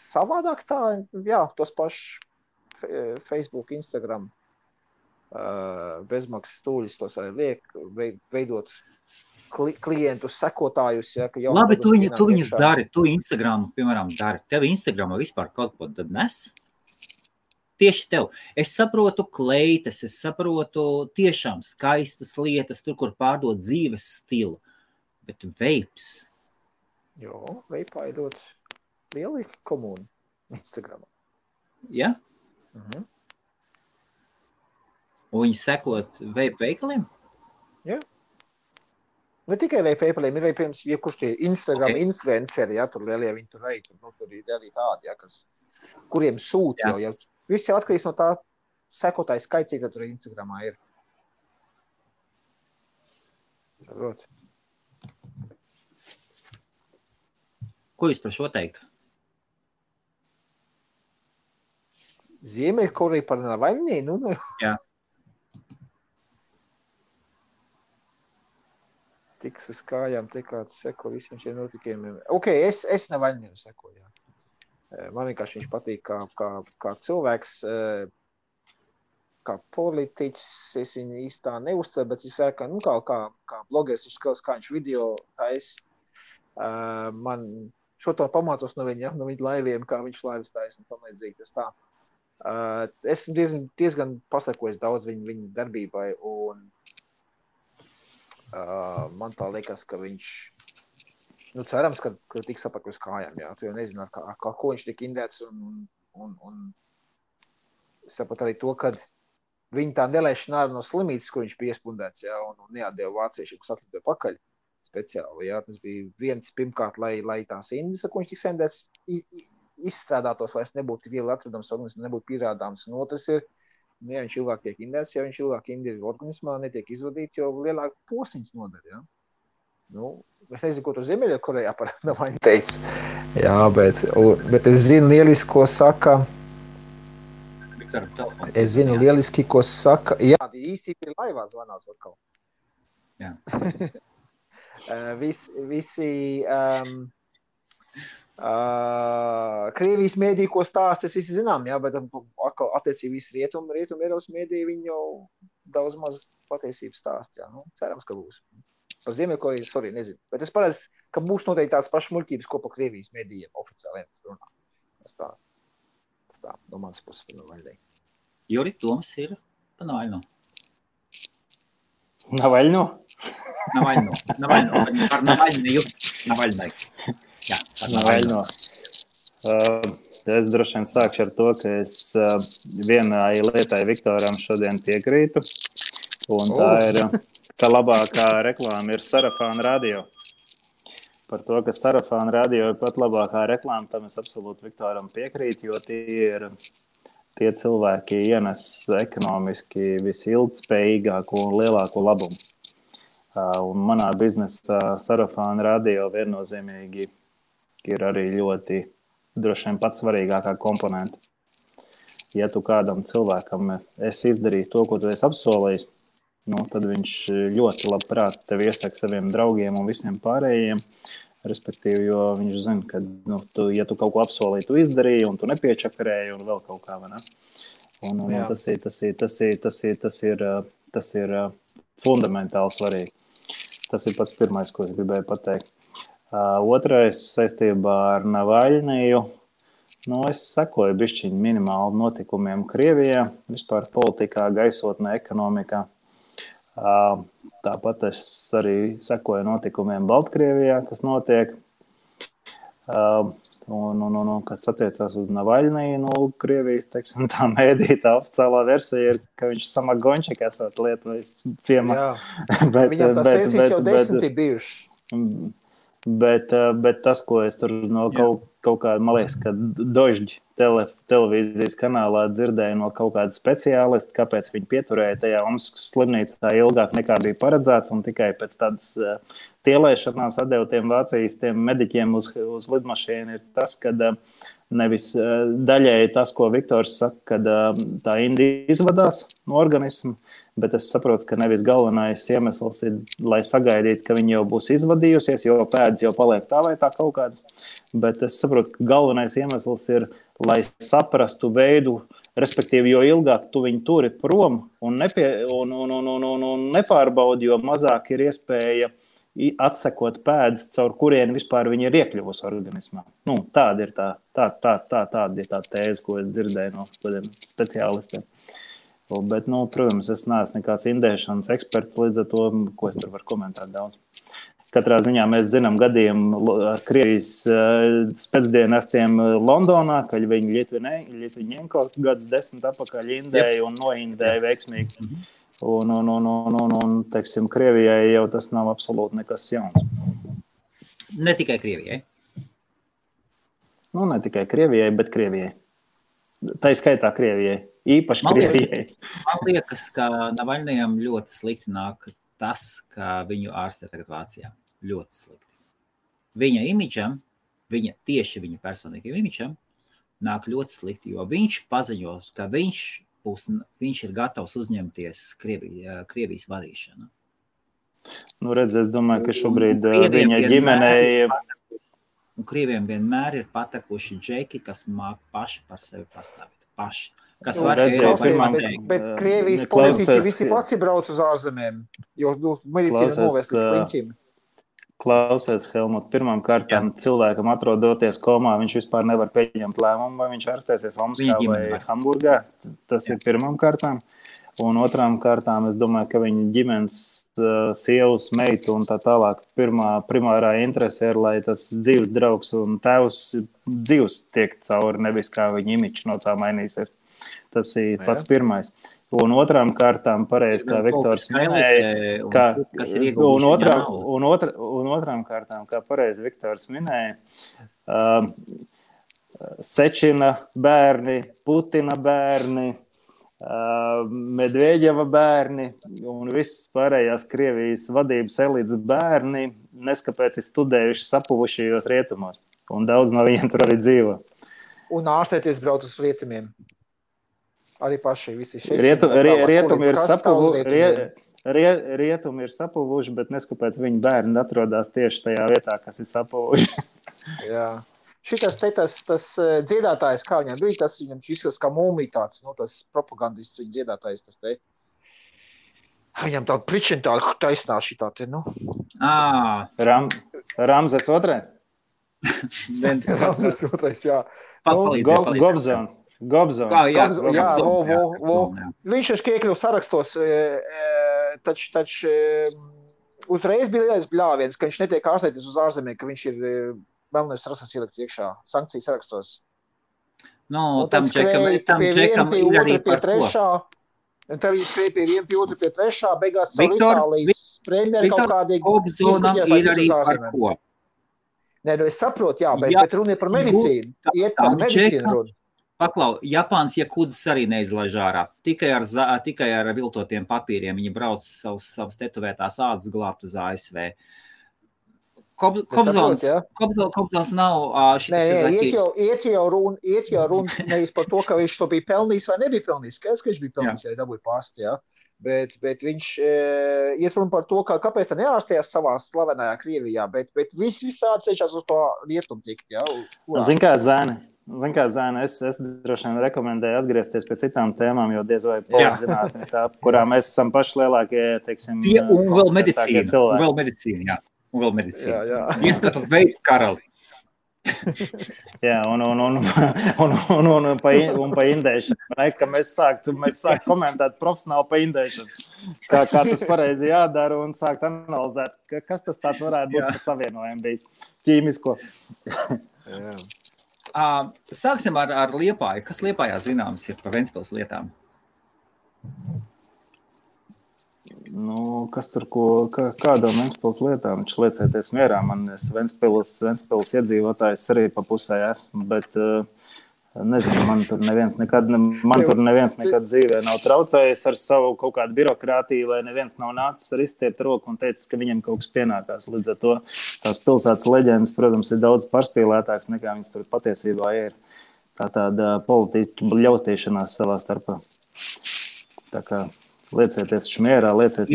Savādāk tā, jā, tos pašus Facebook, Instagram, bezmaksas stūļus, tos arī liek veidot klientus, sekotājus. Ja, labi, tu viņus dari, tu Instagramu, piemēram, dari. Tev Instagramā vispār kaut ko tad nes? Tieši tev. Es saprotu kleitas, es saprotu tiešām skaistas lietas, tur, kur pārdod dzīves stilu. Bet veips? Jo, veipā ir ļoti lieli komūni Instagramā. Ja? Mhm. Un viņi sekot veipu veikaliem? Jā. Ne tikai veipu veikaliem, ir arī, piemēram, jebkurš tie Instagram influenceri, ja, tur lielie viņi tur veikt, tur ir arī tādi, ja, kuriem sūt jau, ja. Viss jau atkarīgs no tā sekotāju skaits, cik tur Instagramā ir. Saprot. Ko jūs par šo teiktu? Ziemeļkoreja par Navaļnī? Nu. Jā. Tiks uz kājām, te kāds seko visiem šiem notikumiem. Ok, es Navaļniem sekoju, jā. Man vienkārši viņš patīk kā cilvēks, kā politiķis, es viņu īstā neuztveru, bet viņš kā blogeris, viņš skaus, kā viņš video tais. Man šo to pamācos no viņa laiviem, kā viņš laivas tais un pamēdzīgi tas tā. Esmu diezgan pasakojis daudz viņa darbībai un man tā liekas, ka viņš, cerams, ka tiks apakaļ uz kājām, jā. Tu jau nezini, kā ko viņš tik indēts un sapat arī to, ka viņa tā nelaišana ārā no slimītes, ko viņš bija iespundēts, jā, un neatdeva vāciešiem, kas atlidoja pakaļ speciāli, jā. Tas bija viens pirmkārt, lai tās indes, ko viņš tiks indēts, izstrādātos, vairs nebūtu viegli atradams organismā, nebūtu pierādāms. Un otrs ir, ja viņš ilgāk tiek indēts, ja viņš ilgāk indēts organismā, netiek izvadīt, jo lielāk posiņas nodara, jā. Es nezinu, ko tu Ziemeļkorejā par Navaļņu teici. Jā, bet es zinu lieliski, ko saka. Es zinu lieliski, ko saka. Jā, īstenībā ir laivā zvanās atkal. Jā. Visi Krievijas mēdī, ko stāst, es visi zinām, jā, bet attiecīgi visi rietumu Eiropas mēdī viņi jau daudz maz patiesības stāst, jā. Cerams, ka būs. Par Ziemeļkoreju, nezinu. Bet es paredzu, ka būs noteikti tāds pašs muļķības, ko pa Krievijas mēdījiem oficiāliem runā. Tas tā, no manas puses par Navaļnī. Juri, Toms ir pa Navaļno. Navaļno? Navaļno. Par Navaļniju. Navaļnai. Jā, par Navaļno. Es droši vien sākšu ar to, ka es vienai lietai Viktoram šodien piekrītu. Un tā ir, ka labākā reklāma ir Sarafāna radio. Par to, ka Sarafāna radio ir pat labākā reklāma, tam es absolūti Viktoram piekrītu, jo tie cilvēki ienes ekonomiski visilgtspējīgāko un lielāko labumu. Un manā biznesā Sarafāna radio viennozīmīgi ir arī ļoti droši vien pats svarīgākā komponenta. Ja tu kādam cilvēkam esi izdarījis to, ko tu esi apsolījis, tad viņš ļoti labprāt tevi iesaka saviem draugiem un visiem pārējiem, respektīvi, jo viņš zina, ka, ja tu kaut ko apsolīji, tu izdarīji un tu nepiečakarēji un vēl kaut kā, vai ne? Un tas ir fundamentāli svarīgi. Tas ir pats pirmais, ko es gribēju pateikt. Otrais saistībā ar Navaļniju. Es sekoju bišķiņu minimāli notikumiem Krievijā, vispār politikā, gaisotnē, ekonomikā. Tāpat es arī sekoju notikumiem Baltkrievijā, kas notiek. Kas attiecās uz Navaļniju, Krievijas, teiksim, tā mēdītā oficiālā versija ir, ka viņš Samagončik esot Lietuvas ciemā. Viņam tās versijas jau 10 bijuši. Bet tas, ko es tur no kaut kāda, man liekas, ka Dožģi televīzijas kanālā dzirdēju no kaut kāda speciālista, kāpēc viņi pieturēja tajā Omskas slimnīcā ilgāk nekā bija paredzēts, un tikai pēc tādas tielēšanās atdeva tiem Vācijas tiem mediķiem uz lidmašīnu, ir tas, ka nevis daļēji tas, ko Viktors saka, kad tā indi izvadās no organismu, bet es saprotu, ka nevis galvenais iemesls ir, lai sagaidītu, ka viņi jau būs izvadījusies, jo pēdas jau paliek tā vai tā kaut kāds, bet es saprotu, ka galvenais iemesls ir, lai saprastu veidu, respektīvi, jo ilgāk tu viņu turi prom un nepārbaudi, jo mazāk ir iespēja atsekot pēdas, caur kurien vispār viņi ir iekļuvusi organismā. Tāda ir tā tēze, ko es dzirdēju no kādiem speciālistiem. Bet, protams, es neesmu nekāds indēšanas eksperts, līdz ar to, ko es tur varu komentēt daudz. Katrā ziņā mēs zinām gadījumu ar Krievijas spēcdienestiem Londonā, kad viņi Ļitviņenko gadus 10 atpakaļ indēja un noindēja veiksmīgi. Un, teiksim, Krievijai jau tas nav absolūti nekas jauns. Ne tikai Krievijai. Ne tikai Krievijai, bet Krievijai. Tā skaitā Krievijai. Īpaši Krievijai. Man liekas, ka Navaļnijam ļoti slikti nāk tas, ka viņu ārstē tagad Vācijā. Ļoti slikti. Viņa imidžam, tieši viņa personīgiem imidžam nāk ļoti slikti, jo viņš paziņos, ka viņš ir gatavs uzņemties Krievijas vadīšanu. Redz, es domāju, ka šobrīd viņa ģimenei... Un Krieviem vienmēr ir patekuši džeki, kas māk paši par sevi pastāvīt. Paši. Kas var bet Krievijas politiķi visi pats brauc uz ārzemēm, jo medicīna novērst līdz sliņķim. Klausies, Helmut, pirmām kārtām cilvēkam atrodoties komā, viņš vispār nevar pieņemt lēmumu, vai viņš ārstēsies Omskā vai Hamburgā. Tas ir pirmām kārtām. Un otrām kārtām, es domāju, ka viņa ģimenes sievas, meitu un tā tālāk primārā interese ir, lai tas dzīves draugs un tēvs dzīves tiek cauri, nevis kā viņa imičs no tā mainīsies. Tas ir pats pirmais. Un otrām kārtām, pareizi, kā Viktors minēja, un otrām kārtām, kā pareizi Viktors minēja, Sečina bērni, Putina bērni, Medveģeva bērni un visas pārējās Krievijas vadības elites bērni neskapēc ir studējuši sapuvušajos rietumos. Un daudz no viņiem tur arī dzīvo. Un ārstēties brauc uz rietumiem. Arī paši visi šeit. Rietumi ir sapuvuši, bet neskapēc viņu bērni atrodas tieši tajā vietā, kas ir sapuvuši. Jā. Šitas tas dziedātājs, kā viņam bija, tas viņam izskatās kā mūmija tāds, tas propagandists viņa dziedātājs, tas te. Viņam tāda pričina tāda taisnā šitā te, Ramzes otrais? Ramzes otrais, jā. Gobzons. Viņš ir iekļuvis sarakstos, taču uzreiz bija lielais bļāviens, ka viņš netiek ārstēties uz ārzemē, ka viņš ir melnais rakstas ielikts iekšā, sankcijas sarakstos. Tam džekam ir arī par ko. Un tev viņi skrēja pie viena, pie otra, pie trešā, beigās caur Itālijas premjeri kaut kādīgi. Kobzonam ir arī par ko. Nē, es saprotu, jā, bet runa ir par medicīnu. Iet par medicīnu runa. Paklau, Japāns Jakudzes arī neizlaiž ārā. Tikai ar viltotiem papīriem viņi brauc savas tetovētās ādas glābt uz ASV. Kobzons nav iet jau runa nevis par to, ka viņš to bija pelnījis vai nebija pelnījis. Skaidrs, ka viņš bija pelnījis, ja dabūja pasti, jā. Bet viņš iet runa par to, kāpēc tā neārstējās savā slavenajā Krievijā, bet visādi cenšas uz to rietumu tikt, jā. Zin kā, Zēne, es droši vien rekomendēju atgriezties pie citām tēmām, jo diez vai polizinātni tā, kurā mēs esam paši lielākie, teiksim, un vēl medicīna, jā. Un vēl medicīna. Jā. Ieskatot veidu karali. Jā, un pa indēšanu. Ka mēs sāktu komentēt profesionāli pa indēšanu. Kā tas pareizi jādara un sākt analizēt, kas tas tāds varētu būt par savienojumu bijis ķīmisko. Jā. Sāksim ar Liepāju. Kas Liepājā zināms ir par Ventspils lietām? Nu, kas tur kādām Ventspils lietām? Viņš liecēties mierā. Man Ventspils iedzīvotājs arī pa pusē esmu, bet nezinu, man tur neviens nekad dzīvē nav traucējis ar savu kaut kādu birokrātiju, vai neviens nav nācis ar izstiept roku un teicis, ka viņam kaut kas pienākās. Līdz ar to tās pilsētas leģendas, protams, ir daudz pārspīlētāks nekā viņas tur patiesībā ir. Tāda politiska ļaustīšanās savā starpā. Tā kā liecieties mierā, lieciet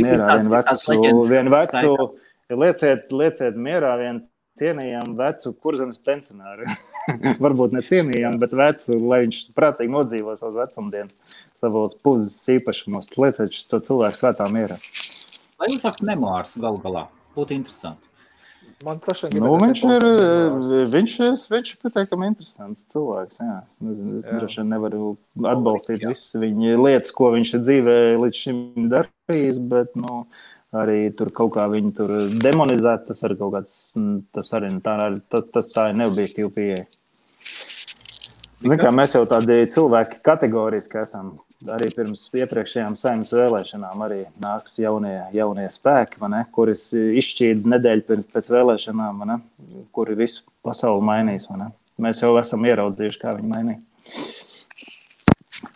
mierā vienu cienījamu vecu Kurzemes pensionāru. Varbūt ne cienījamu, bet vecu, lai viņš prātīgi nodzīvo savus vecumdienas, savos puzes īpašumos. Lieciet to cilvēku svētā mierā. Vai jūs sakat memoārs galu galā? Būtu interesanti. Man viņš ir pateikami interesants cilvēks. Jā. Es nezinu, es droši vien nevaru atbalstīt visas viņa lietas, ko viņš ir dzīvē līdz šim darījis, bet arī tur kaut kā viņu tur demonizēt, tas arī kaut kāds, tas tā ir neobjektīva pieeja. Zin kā, mēs jau tādi cilvēki kategoriski esam. Arī pirms iepriekšējām Saeimas vēlēšanām arī nāks jaunie spēki, kuris izšķīda nedēļu pēc vēlēšanām, kuri visu pasauli mainīs. Mēs jau esam ieraudzījuši, kā viņi mainīja.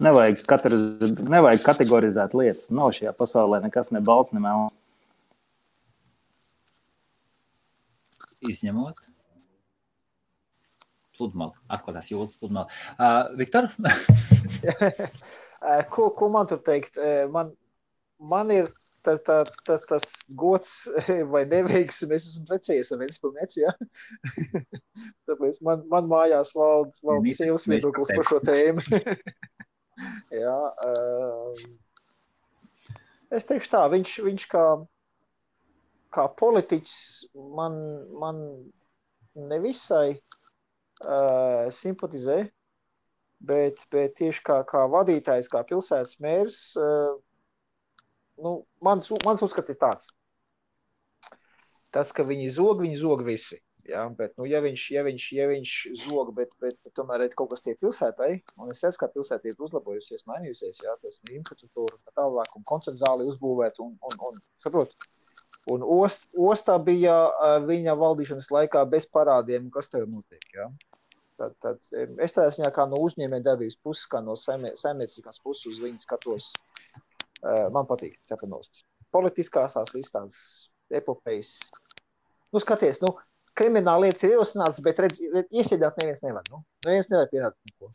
Nevajag kategorizēt lietas. Nav šajā pasaulē nekas ne balts, ne melns. Izņemot pludmali, atklātās jūtas pludmali. Viktor? Ko man tur teikt? Man ir tas gods vai neveiksmi, es esmu precējies ar Ventspilnieci, ja? Tāpēc man mājās valda sievas viedoklis par šo tēmu. Jā, es teikšu tā, viņš kā politiķis man nevisai simpatizē, bet tieši kā vadītājs, kā pilsētas mērs, mans uzskats ir tāds. Tas, ka viņi zog visi. Ja? Bet, ja viņš zog, bet tomēr ir kaut kas tie pilsētai, un es redzu, kā pilsēta ir uzlabojusies, mainījusies, ja? Tas infrastruktūra tālāk un koncertu zāli uzbūvēt un saprot. Un ostā bija viņa valdīšanas laikā bez parādiem, kas tev notiek, ja? Tad es tādā ziņā kā no uzņēmēja darbības puses, kā no saimnieciskās puses uz viņu skatos. Man patīk Cepanovs. Politiskās tās visas tādas epopejas. Skaties, krimināla lietas ir ierosināts, bet iesēdāt neviens nevar. Neviens nevar pierādīt neko.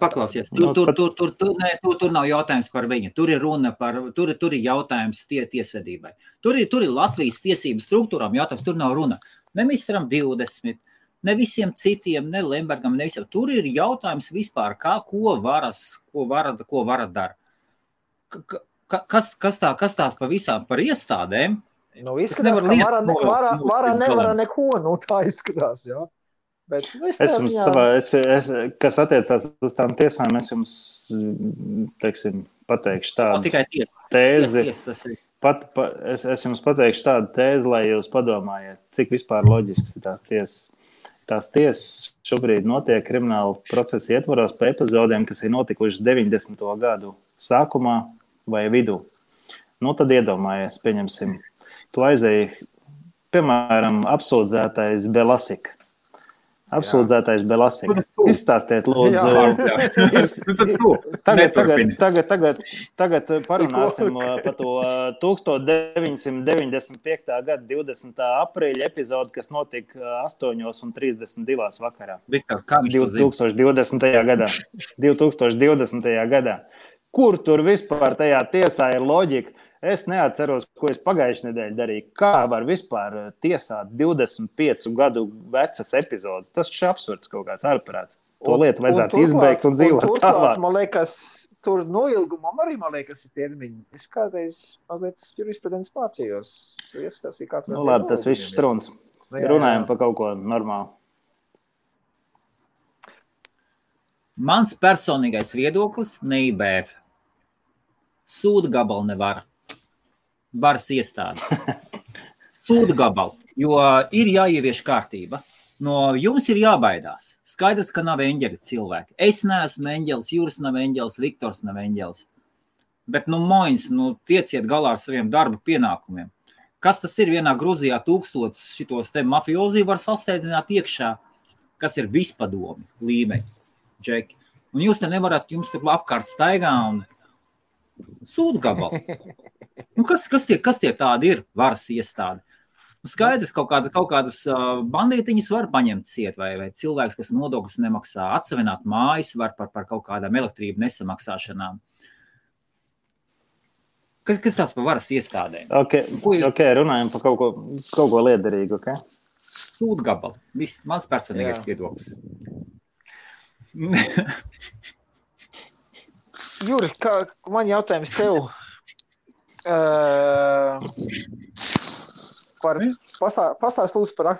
Paklausies. Tur nav jautājums par viņu. Tur ir runa par, tur ir jautājums tiesvedībai. Tur ir Latvijas tiesības struktūrām jautājums, tur nav runa. Ne Mistram 20, ne visiem citiem, ne Lembergam, ne visiem. Tur ir jautājums vispār, ko vara dara. Kas tās pa visām par iestādēm? Izskatās, ka vara nevara neko, tā izskatās, jā. Bet, kas attiecās uz tām tiesām, es jums, pateikšu tādu tēzi. Es jums pateikšu tādu tēzi, lai jūs padomājiet, cik vispār loģisks ir tās tiesas. Tās tiesas šobrīd notiek krimināla procesa ietvaros pa epizodēm, kas ir notikušas 90. gadu sākumā vai vidū. Tad iedomājies, pieņemsim. Tu aizēji, piemēram, apsūdzētais Belasika. Izstāstiet, lūdzu. Tagad parunāsim par to 1995. gada 20. aprīļa epizodu, kas notika 8:32 vakarā. Viktor, kā viņš 2020. gadā. Kur tur vispār tajā tiesā ir loģika? Es neatceros, ko es pagājušajā nedēļā darīju. Kā var vispār tiesāt 25 gadu vecas epizodes? Tas ir absurds kaut kāds ārprāts. To lietu vajadzētu izbeigt un dzīvot tālāk. Man liekas, tur noilgumam arī, man liekas, ir termiņi. Es kādreiz mazliet jurisprudents mācījos. Tu iestāstīji, kā tur Labi, tas viss struns. Runājam par kaut ko normālu. Mans personīgais viedoklis neibēv. Sūda gabalu nevar. Varas iestādes. Sūda gabalu, jo ir jāievieš kārtība. No jums ir jābaidās. Skaidrs, ka nav eņģeļi cilvēki. Es neesmu eņģelis, Juris nav eņģelis, Viktors nav eņģelis. Bet, moņas, tieciet galā ar saviem darba pienākumiem. Kas tas ir vienā Gruzijā 1000 šitos te mafiozi var sastēdināt iekšā, kas ir vispadomi līmeņi, džeki. Un jūs te nevarat, jums tur apkārt staigā un sūda gabalu. Kas tie tādi ir varas iestādi? Skaidrs, kaut kādas bandītiņas var paņemt ciet, vai cilvēks, kas nodokļus nemaksā, atsavināt mājas var par kaut kādām elektrību nesamaksāšanām. Kas tās par varas iestādēm? Ok, runājam par kaut ko liederīgu, ok? Sūda gabalu. Viss, mans personīgais viedoklis. Juri, man jautājums tev. Pastāst lūdzu par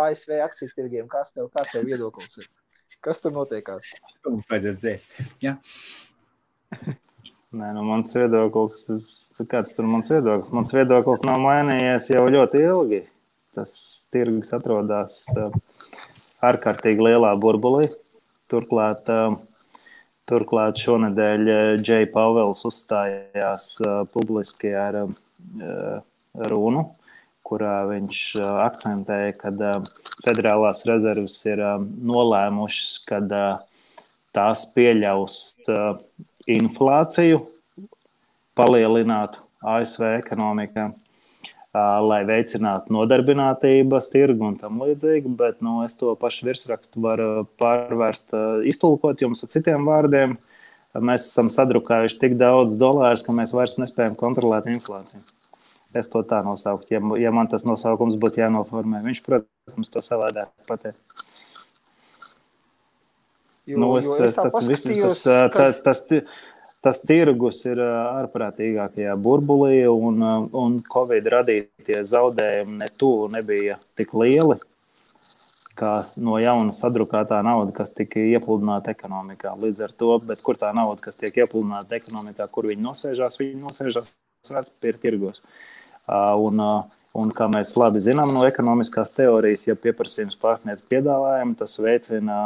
ASV akciju tirgiem. Kāds tev viedoklis ir? Kas tur notiekās? Tu mums vajadzēs dzēst. Ja? Nē, mans viedoklis, kāds tur mans viedoklis? Mans viedoklis nav mainījies jau ļoti ilgi. Tas tirgus atrodas ārkārtīgi lielā burbulī. Turklāt šonedēļ Džej Pavels uzstājās publiski ar runu, kurā viņš akcentēja, ka federālās rezerves ir nolēmušas, ka tās pieļaus inflāciju palielinātu ASV ekonomikā, lai veicinātu nodarbinātības tirgu un tam līdzīgi, bet es to pašu virsrakstu varu pārvērst, iztulkot jums ar citiem vārdiem. Mēs esam sadrukājuši tik daudz dolārus, ka mēs vairs nespējam kontrolēt inflāciju. Es to tā nosaukt, ja man tas nosaukums būtu jānoformē. Viņš, protams, to savādāk pateikt. Tas tirgus ir ārprātīgākajā burbulī, un Covid radītie zaudējumi ne tuvu nebija tik lieli, kā no jauna sadrukātā nauda, kas tika iepludināta ekonomikā. Līdz ar to, bet kur tā nauda, kas tiek iepludināta ekonomikā, kur viņi nosēžās vērtspapīra tirgos. Un kā mēs labi zinām no ekonomiskās teorijas, ja pieprasījums pārsniedz piedāvājumu, tas veicina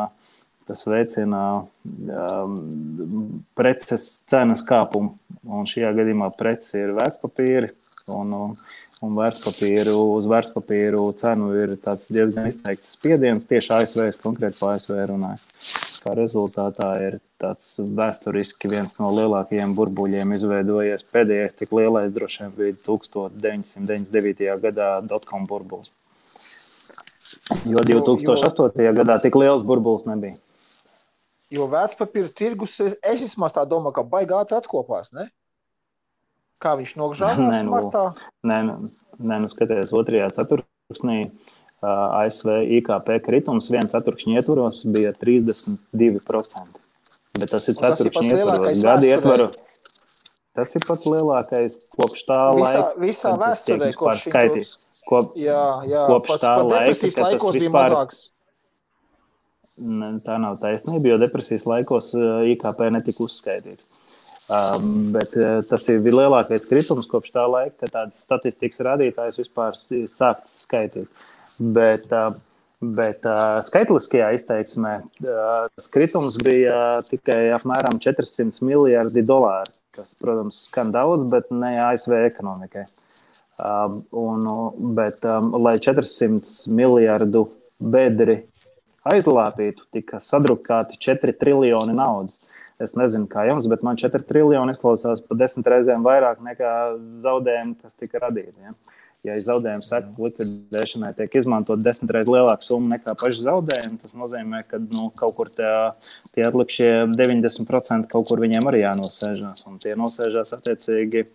preces cenas kāpumu. Un šajā gadījumā prece ir vērtspapīri, un uz vērtspapīru cenu ir tāds diezgan izteikts spiediens, tieši ASV, konkrēti pa ASV runāju. Kā rezultātā ir tāds vēsturiski viens no lielākajiem burbuļiem izveidojies. Pēdējais tik lielais droši vien bija 1999. gadā dotcom burbulis. Jo 2008. gadā tik liels burbulis nebija. Jo vērtspapīra tirgus, es vismaz tā domāju, ka baigi ātri atkopās, ne? Kā viņš nogžāvās martā? Nē, skaties, otrajā ceturksnī ASV IKP kritums 1 ceturkšņa ietvaros bija 32%. Bet tas ir ceturkšņa ietvaros. Gadi ietvaru. Tas ir pats lielākais kopš tā laika. Visā vēsturē, kopš skaitīt. Kopš tā laika, depresijas laikos bija mazāks. Tā nav taisnība, jo depresijas laikos IKP netika uzskaitīts. Bet tas ir lielākais kritums kopš tā laika, kad tādas statistikas rādītājs vispār sākts skaitīt. Bet skaitliskajā izteiksmē kritums bija tikai apmēram 400 miljardi dolāri, kas, protams, skan daudz, bet ne ASV ekonomikai. Bet, lai 400 miljardu bedri aizlāpītu, tika sadrukāti 4 triljoni naudas. Es nezinu, kā jums, bet man 4 triljoni izklausās pa 10 reizēm vairāk nekā zaudējumi, kas tika radīti. Ja? Ja zaudējumu seku likvidēšanai tiek izmantot 10 reizes lielāku summu nekā paši zaudējumi, tas nozīmē, ka kaut kur tie atlikušie 90% kaut kur viņiem arī jānosēžās. Un tie nosēžās attiecīgi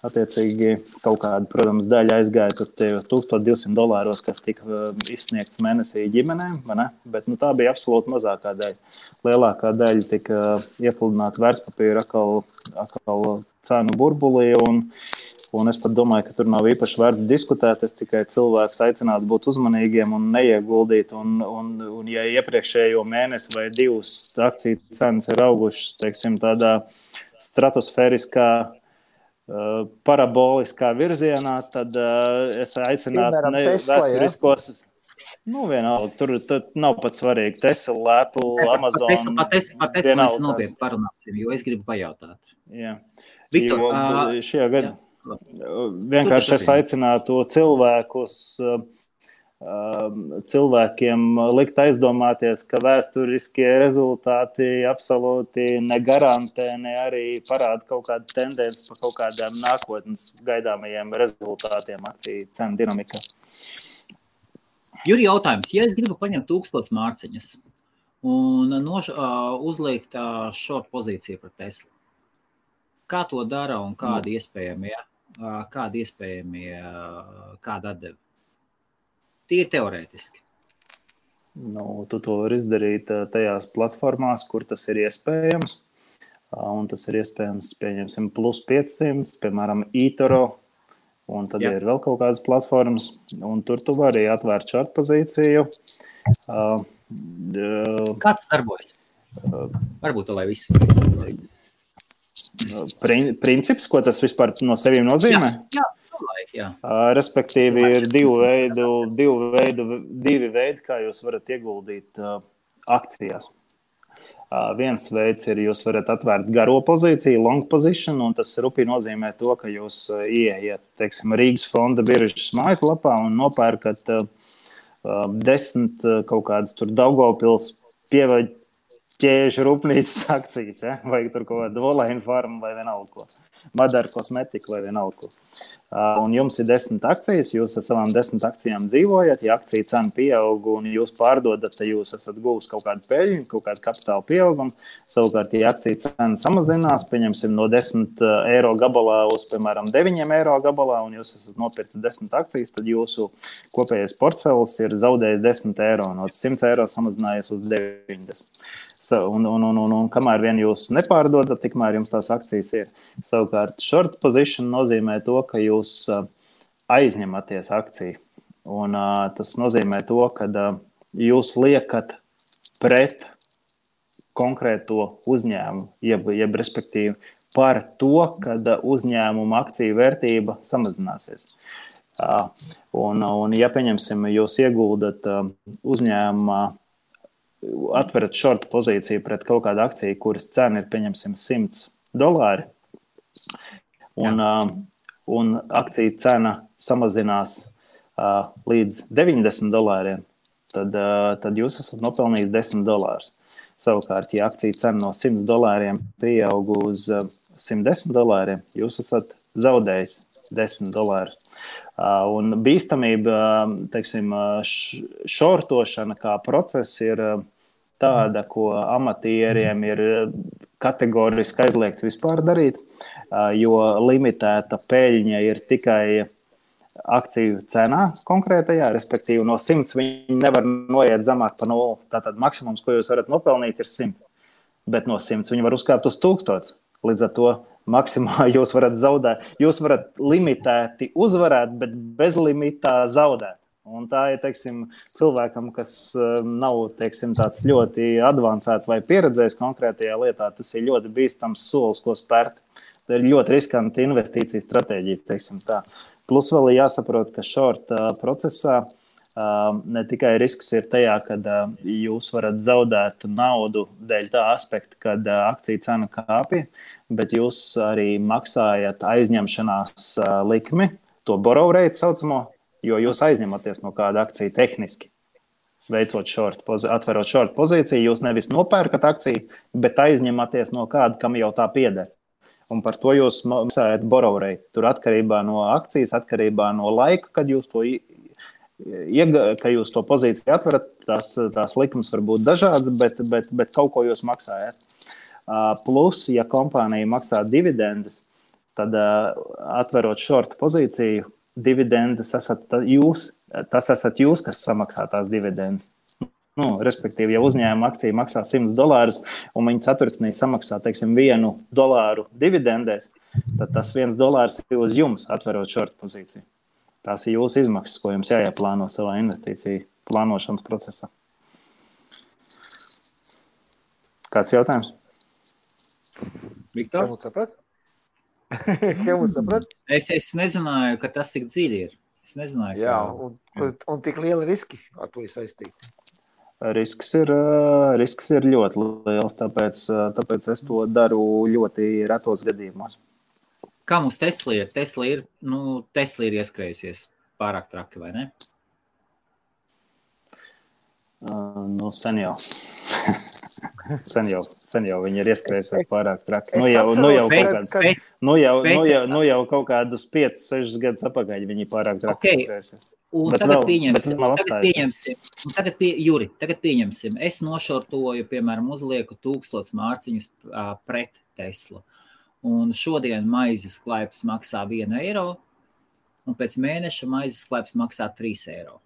attiecīgi kaut kāda, protams, daļa aizgāja tur $1,200, kas tika izsniegts mēnesī ģimenēm, vai ne? Bet tā bija absolūti mazākā daļa. Lielākā daļa tika iepludināta vērtspapīra atkal cenu burbulī, un es pat domāju, ka tur nav īpaši vērts diskutēt. Es tikai cilvēkus aicinātu būt uzmanīgiem un neieguldīt. Un ja iepriekšējo mēnesi vai divus akciju cenas ir augušas, teiksim, tādā stratosfēriskā, paraboliskā virzienā, tad es aicinātu vēsturiskos. Vienalga, tur nav pat svarīgi. Tesla, Apple, Amazon. Par Tesla mēs nopietni parunāsim, jo es gribu pajautāt. Jā. Viktor, šajā gadā vienkārši es aicinātu cilvēkiem likt aizdomāties, ka vēsturiskie rezultāti absolūti negarantē, ne arī parāda kaut kādu tendenci par kaut kādām nākotnes gaidāmajiem rezultātiem akciju cenu dinamikā. Juri, jautājums. Ja es gribu paņemt 1000 mārciņas un uzliekt short pozīciju par Teslu, kā to dara un kādi iespējamie, kāda atdeva? Tie teorētiski. Tu to var izdarīt tajās platformās, kur tas ir iespējams. Un tas ir iespējams, pieņemsim, plus 500, piemēram, eToro. Un tad ir vēl kaut kādas platformas. Un tur tu vari atvērt short pozīciju. Kā tas darbojas? Varbūt, lai visi. Princips, ko tas vispār no sevīm nozīmē? Jā. Respektīvi ir divi veidi, kā jūs varat ieguldīt akcijās. Viens veids ir, jūs varat atvērt garo pozīciju, long position, un tas rupi nozīmē to, ka jūs ieiet, teiksim, Rīgas fonda biržas mājaslapā un nopērkat 10 kaut kādas tur Daugavpils pievaļķēžu rūpnīcas akcijas, vai tur kaut kāda Volaina farma vai vienalga ko. Madara kosmetika vai vienalga ko. Un jums ir 10 akcijas, jūs ar savām 10 akcijām dzīvojat, ja akcija cena pieaug un jūs pārdodat, tad jūs esat guvis kaut kādu peļņu, kaut kādu kapitāla pieaugumu. Savukārt, ja akcija cena samazinās, pieņemsim no 10 eiro gabalā uz, piemēram, 9 eiro gabalā, un jūs esat nopircis 10 akcijas, tad jūsu kopējais portfels ir zaudējis 10 eiro, no 100 eiro samazinājies uz 90. Un kamēr vien jūs nepārdodat, tikmēr jums tās akcijas ir. Savukārt, short position nozīmē to, ka jūs aizņematies akciju. Un tas nozīmē to, ka jūs liekat pret konkrēto uzņēmumu, jeb respektīvi par to, kad uzņēmuma akciju vērtība samazināsies. Un ja, pieņemsim, jūs ieguldat uzņēmumā, atverat short pozīciju pret kaut kādu akciju, kuras cena ir, pieņemsim, $100, un akciju cena samazinās līdz $90, tad jūs esat nopelnījis $10. Savukārt, ja akciju cena no $100 pieaug uz $110, jūs esat zaudējis $10. Un bīstamība, teiksim, šortošana kā process ir tāda, ko amatieriem ir kategoriski aizliegts vispār darīt, jo limitēta peļņa ir tikai akciju cenā konkrētajā, respektīvi no 100 viņi nevar noiet zemāk par 0. Tātad maksimums, ko jūs varat nopelnīt, ir 100. Bet no 100 viņi var uzkāpt uz 1000. Līdz ar to maksimāli jūs varat zaudēt. Jūs varat limitēti uzvarēt, bet bez limitā zaudēt. Un tā ir, teiksim, cilvēkam, kas nav, teiksim, tāds ļoti advancēts vai pieredzējis konkrētajā lietā, tas ir ļoti bīstams solis, ko spērt. Tā ir ļoti riskanta investīcija stratēģija, teiksim tā. Plus vēl ir jāsaprot, ka short procesā ne tikai risks ir tajā, kad jūs varat zaudēt naudu dēļ tā aspekta, kad akciju cena kāpja, bet jūs arī maksājat aizņemšanās likmi, to borrow rate saucamo, jo jūs aizņematies no kāda akcija tehniski. Atverot short pozīciju, jūs nevis nopērkat akciju, bet aizņematies no kāda, kam jau tā pieder. Un par to jūs maksājat borrow rate. Tur atkarībā no akcijas, atkarībā no laika, kad jūs to pozīciju atverat, tās likums var būt dažādas, bet kaut ko jūs maksājat. Plus, ja kompānija maksā dividendes, tad atverot short pozīciju, dividendes tas esat jūs, kas samaksā tās dividendes. Respektīvi, ja uzņēmuma akcija maksā $100 un viņi ceturksnī samaksā, teiksim, $1 dividendēs, tad tas $1 ir uz jums atverot short pozīciju. Tās ir jūsu izmaksas, ko jums jāieplāno savā investīciju plānošanas procesā. Kāds jautājums? Viktor? Helmuts saprat? Es nezināju, ka tas tik dziļi ir. Es nezināju, Jā, un tik lieli riski ar to ir saistīti. Risks ir ļoti liels, tāpēc es to daru ļoti retos gadījumos. Kā mums Tesla ir? Tesla ir ieskrējusies pārāk traki, vai ne? Sen jau. Sen jau viņi ir ieskrējusies pārāk traki. Jau kaut kādus 5-6 gadus apakaļ viņi pārāk traki ieskrējusies. Un tagad pieņemsim. Es nošortoju, piemēram, uzlieku 1000 mārciņas pret Teslu. Un šodien maizes klaips maksā €1, un pēc mēneša maizes klaips maksā €3.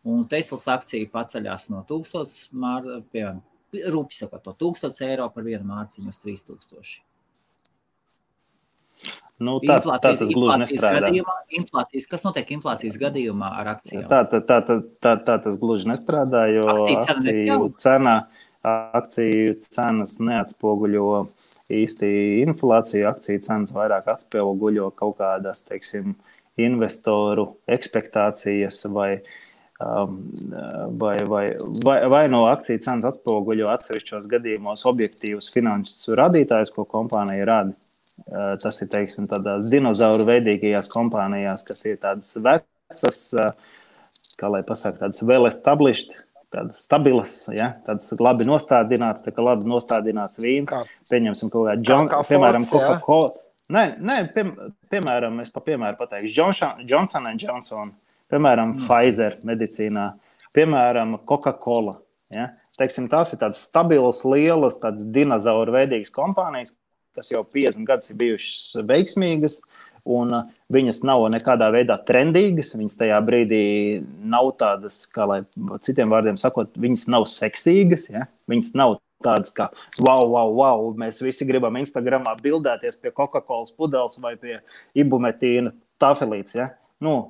Un Teslas akcija paceļās no 1000, piemēram, rūpi sakot, no €1000 par vienu mārciņu uz 3000. Tā tas gluži nestrādā. Kas notiek inflācijas gadījumā ar akcijām? Tā tas gluži nestrādā, jo akciju cenas neatspoguļo īsti inflāciju. Akciju cenas vairāk atspoguļo kaut kādas, teiksim, investoru ekspektācijas vai no akciju cenas atspoguļo atsevišķos gadījumos objektīvus finanšu rādītājus, ko kompānija rāda. Tas ir, teiksim, tādās dinozauru veidīgajās kompānijās, kas ir tādas vecas, kā lai pasaka, tādas well established, tādas stabilas, ja? Tādas labi nostādināts, tā kā labi nostādināts vīns. Pieņemsim kaut kā piemēram, Coca-Cola. Piemēram, es piemēru pateikšu, Johnson & Johnson, piemēram, Pfizer medicīnā, piemēram, Coca-Cola. Ja? Teiksim, tās ir tādas stabilas, lielas, tādas dinozauru veidīgas kompānijas, kas jau 50 gadus ir bijušas veiksmīgas, un viņas nav nekādā veidā trendīgas, viņas tajā brīdī nav tādas, kā lai citiem vārdiem sakot, viņas nav seksīgas, ja? Viņas nav tādas kā wow, mēs visi gribam Instagramā bildēties pie Coca-Colas pudeles vai pie ibumetīna tafelītes, ja?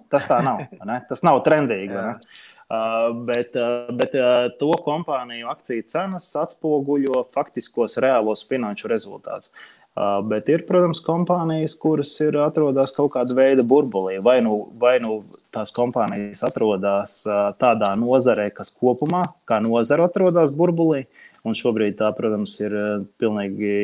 Tas tā nav, ne? Tas nav trendīgi, ne? Bet to kompāniju akciju cenas atspoguļo faktiskos reālos finanšu rezultātus. Bet ir, protams, kompānijas, kuras atrodas kaut kāda veida burbulī. Vai nu tās kompānijas atrodas tādā nozarē, kas kopumā, kā nozara atrodas burbulī, un šobrīd tā, protams, ir pilnīgi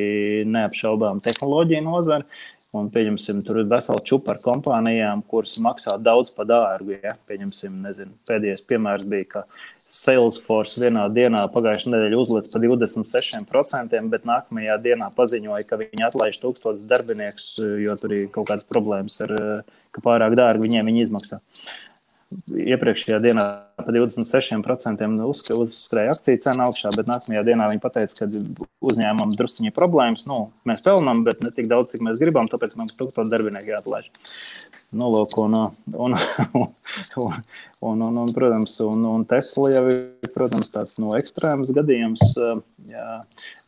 neapšaubām tehnoloģija nozara. Un, pieņemsim, tur ir vesela čupa ar kompānijām, kuras maksā daudz pa dārgu. Ja? Pieņemsim, pēdējais piemērs bija, ka Salesforce vienā dienā pagājušajā nedēļā uzliec pa 26%, bet nākamajā dienā paziņoja, ka viņi atlaiž 1000 darbiniekus, jo tur ir kaut kādas problēmas ar, ka pārāk dārgi viņiem viņi izmaksā. Iepriekšējā dienā pa 26% uzskrēja akciju cena augšā, bet nākamajā dienā viņi pateica, ka uzņēmumam drusciņi problēmas. Mēs pelnām, bet ne tik daudz, cik mēs gribam, tāpēc mums 1000 darbinieku jāatlaiž. Protams, un Tesla jau ir, protams, tāds ekstrēms gadījums,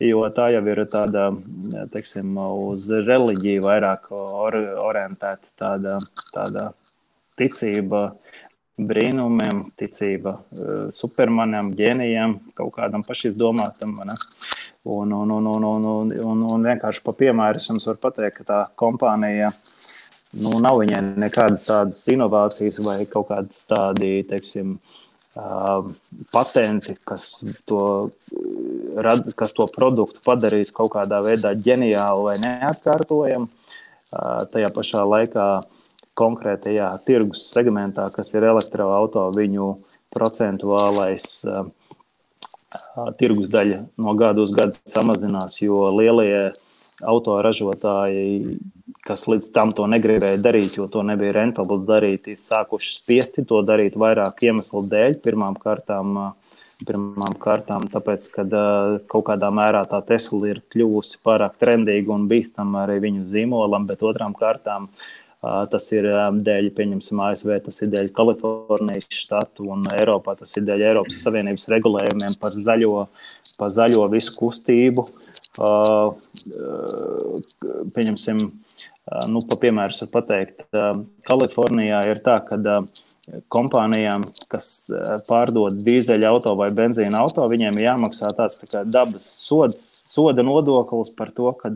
jo tā jau ir tāda, teiksim, uz reliģiju vairāk orientēta tāda ticība brīnumiem, ticība supermanam, ģēnijam, kaut kādam pašizdomātam. Un vienkārši pa piemēru es jums varu pateikt, ka tā kompānija nav viņai nekādas tādas inovācijas vai kaut kādas tādi, teiksim, patenti, kas to produktu padarītu kaut kādā veidā ģeniālu vai neatkārtojamu. Tajā pašā laikā konkrētajā tirgus segmentā, kas ir elektroauto, viņu procentuālais tirgus daļa no gadu uz gadu samazinās, jo lielie autoražotāji, kas līdz tam to negribēja darīt, jo to nebija rentabli darīt, ir sākuši spiesti to darīt vairāk iemeslu dēļ. Pirmām kārtām Pirmām kārtām, tāpēc, ka kaut kādā mērā tā Tesla ir kļuvusi pārāk trendīga un bīstama arī viņu zīmolam, bet otrām kārtām tas ir dēļ, pieņemsim, ASV, tas ir dēļ Kalifornijas štatu un Eiropā, tas ir dēļ Eiropas Savienības regulējumiem par zaļo visu kustību. Pieņemsim, pa piemērs var pateikt, Kalifornijā ir tā, ka kompānijām, kas pārdod dīzeļa auto vai benzīna auto, viņiem ir jāmaksā tāds tā kā dabas soda nodoklis par to, kad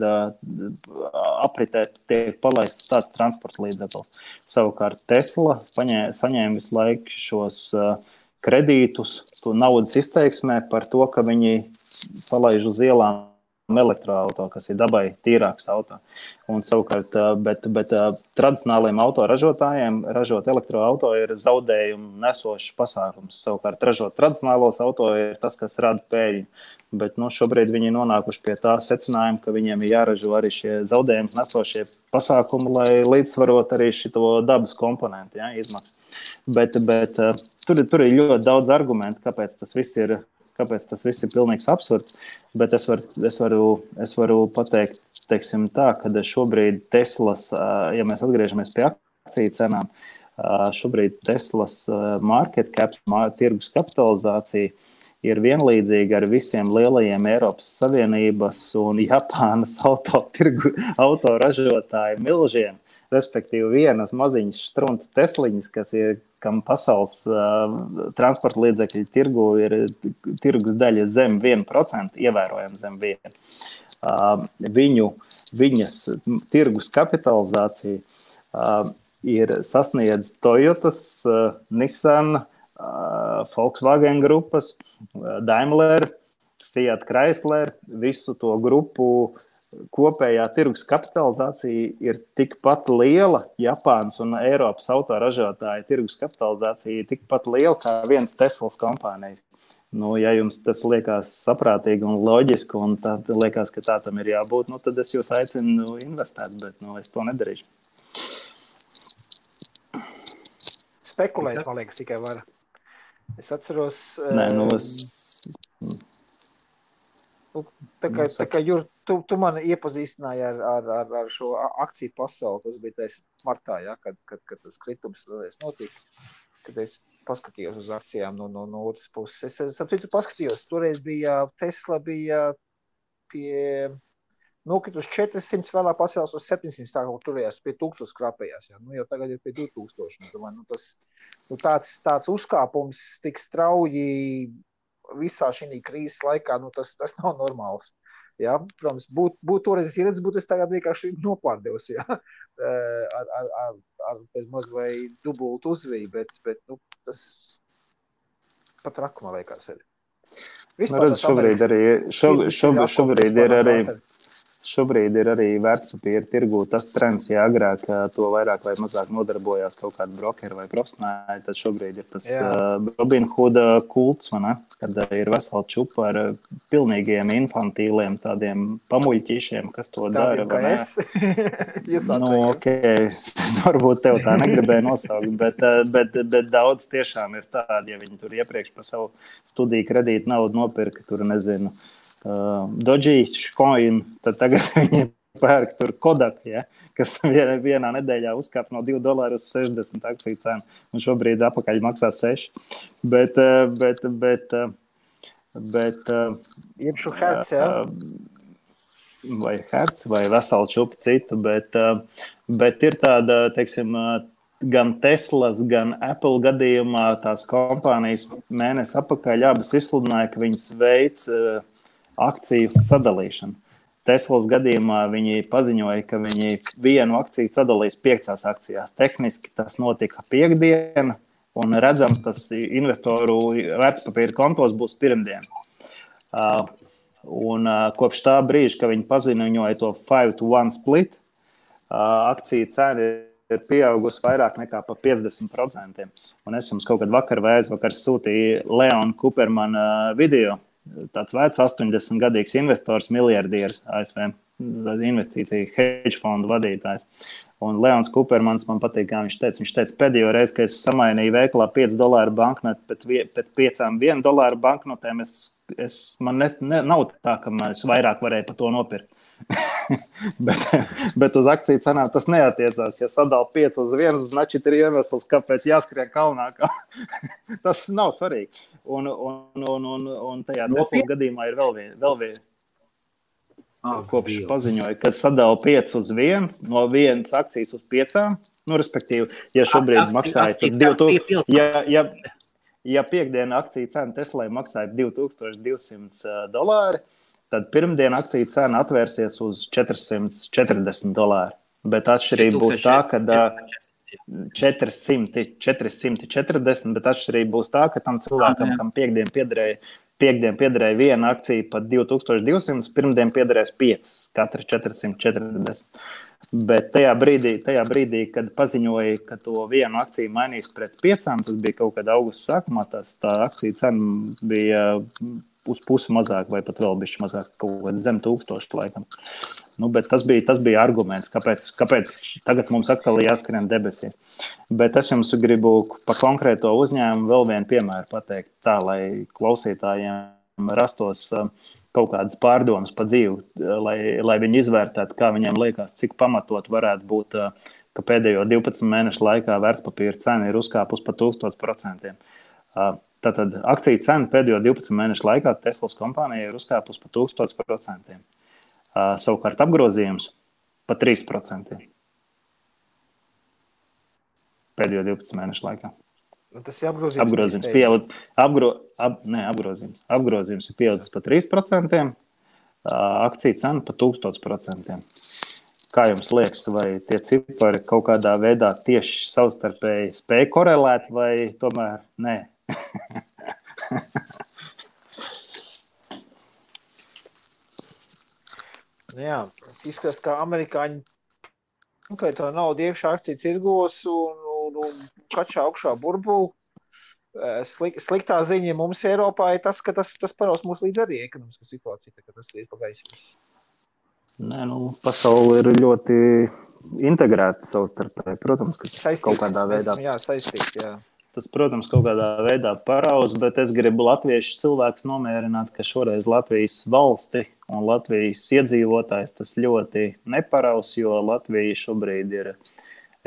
apritē tiek palaists tāds transporta līdzeklis. Savukārt Tesla saņēma visu laiku šos kredītus, to naudas izteiksmē par to, ka viņi palaiž uz ielām elektroauto, kas ir dabai tīrāks auto. Un savukārt, bet tradicionāliem autoražotājiem ražot elektroauto ir zaudējumu nesošs pasākums. Savukārt ražot tradicionālos auto ir tas, kas rada pēļņu. Bet šobrīd viņi nonākuši pie tā secinājuma, ka viņiem ir jāražo arī šie zaudējumus nesošie pasākumi, lai līdzsvarot arī šito dabas komponentu izmaksu. Bet tur ir ļoti daudz argumentu, kāpēc tas viss ir pilnīgs absurds, bet es varu pateikt, teiksim tā, ka šobrīd Teslas, ja mēs atgriežamies pie akciju cenām, šobrīd Teslas market cap, tirgus kapitalizācija ir vienlīdzīga ar visiem lielajiem Eiropas Savienības un Japānas autoražotāju milžiem. Respektīvi vienas maziņas štrunta Tesliņas, kam pasaules transporta līdzekļu tirgu ir tirgus daļa zem 1%, ievērojami zem 1%. Viņas tirgus kapitalizācija ir sasniedz Toyotas, Nissan, Volkswagen grupas, Daimler, Fiat Chrysler, visu to grupu kopējā tirgus kapitalizācija ir tikpat liela, Japānas un Eiropas autoražotāja tirgus kapitalizācija ir tikpat liela kā viens Teslas kompānijas. Ja jums tas liekas saprātīgi un loģiski, un tad liekas, ka tā tam ir jābūt, tad es jūs aicinu investēt, bet es to nedarīšu. Spekulēt, man liekas, tikai var. Es atceros... Tā kā Jur, tu mani iepazīstināji ar šo akciju pasauli, tas bija tais martā, kad tas kritums notika, kad es paskatījos uz akcijām no otras puses. Es paskatījos, toreiz Tesla bija pie nokritus 400, vēlāk pacēlās uz 700, tā kā turējās pie 1000 skrapējās, jau tagad ir pie 2000. Tāds uzkāpums tik strauji visā šī krīzes laikā, tas nav normāls. Ja? Protams, būt toreiz ieredzis, būtu es tagad vienkārši nopārdevus, ja? ar bez maz vai dubultu uzviju, bet tas pat rakumā liekas arī. Šobrīd ir arī vērtspapīra tirgū tas trends, ja agrāk to vairāk vai mazāk nodarbojās kaut kādi brokeri vai profesionāļi, tad šobrīd ir tas Robinhood kults, kad ir vesela čupa ar pilnīgiem infantīliem tādiem pamuļķīšiem, kas to dara. Varbūt tev tā negribēja nosaukt, bet daudz tiešām ir tādi, ja viņi tur iepriekš pa savu studiju kredītu naudu nopirka, tur nezinu, Dogecoin, tad tagad viņi pērk tur Kodak, kas vienā nedēļā uzkāp no $2 uz 60 akciju cenu, un šobrīd apakaļ maksā 6. Bet iepšu herc, vai herc, vai veselu čupu citu, bet ir tāda, teiksim, gan Teslas, gan Apple gadījumā tās kompānijas mēnesi apakaļ abas izsludināja, ka viņas veic akciju sadalīšanu. Teslas gadījumā viņi paziņoja, ka viņi vienu akciju sadalīs 5 akcijās. Tehniski tas notika piektdiena, un redzams, tas investoru vērtspapīra kontos būs pirmdien. Un kopš tā brīža, ka viņi paziņoja to 5-to-1 split, akciju cena ir pieaugusi vairāk nekā pa 50%. Un es jums kaut kad vakar vai aizvakar sūtīju Leona Kupermana video. Tāds vecs 80-gadīgs investors, miljardieris ASV, investīcija hedge fondu vadītājs. Un Leons Kupermans man patīk, kā viņš teica, pēdējo reizi, kad es samainīju veikalā $5 banknotu pēc 5 $1 banknotēm, man nav tā, ka es vairāk varēju par to nopirkt. bet uz akciju cenām tas neatiecās. Ja sadala 5 uz 1, значит, ir iemesls, kāpēc jāskrien kalnā. Tas nav svarīgi. Un tajā Teslas gadījumā ir vēl viena. Kopš paziņoja, ka sadala 5 uz 1, no 1 akcijas uz 5, respektīvi, ja šobrīd maksāja tad 2000, ja piekdiena akcija cena Teslai maksāja $2200, tad pirmdiena akcija cena atvērsies uz $440. Bet atšķirība būs tā, ka 440, bet atšķirība būs tā, ka tam cilvēkam, kam piekdien piederēja viena akcija pat 2200, pirmdien piederēs 5, katra 440. Bet tajā brīdī, kad paziņoja, ka to vienu akciju mainīs pret 5, tas bija kaut kad augusta sākumā, tā akcija cena bija uz pusi mazāk vai pat vēl bišķi mazāk, kaut kad zem 1000 laikam. Bet tas bija arguments, kāpēc tagad mums atkal jāskrien debesī. Bet es jums gribu pa konkrēto uzņēmumu vēl vienu piemēru pateikt tā, lai klausītājiem rastos kaut kādas pārdomas pa dzīvi, lai viņi izvērtētu, kā viņiem liekas, cik pamatot varētu būt, ka pēdējo 12 mēnešu laikā vērtspapīra cena ir uzkāpus pa 1000%. Tātad akciju cena pēdējo 12 mēnešu laikā Teslas kompānija ir uzkāpus pa 1000%. Savukārt apgrozījums pa 3% pēdējo 12 mēnešu laikā. Tas ir apgrozījums. Apgrozījums ir pieaudzis pa 3%, akciju cena pa 1000%. Kā jums liekas, vai tie cipari kaut kādā veidā tieši savstarpēji spēj korelēt vai tomēr nē? Jā, izskatās, ka amerikāņi to naudu iekšā akciju tirgos un kačā augšā burbuli. Sliktā ziņa mums Eiropā ir tas, ka tas paraus mūs līdz arī ekonomiskā situācija, ka tas ir pagaisīs. Nē, pasaule ir ļoti integrēta savstarpēji. Protams, ka kaut kādā veidā. Jā, saistīti, jā. Tas, protams, kaut kādā veidā paraus, bet es gribu latviešu cilvēkus nomierināt, ka šoreiz Latvijas valsti un Latvijas iedzīvotājs tas ļoti neparaus, jo Latvija šobrīd ir,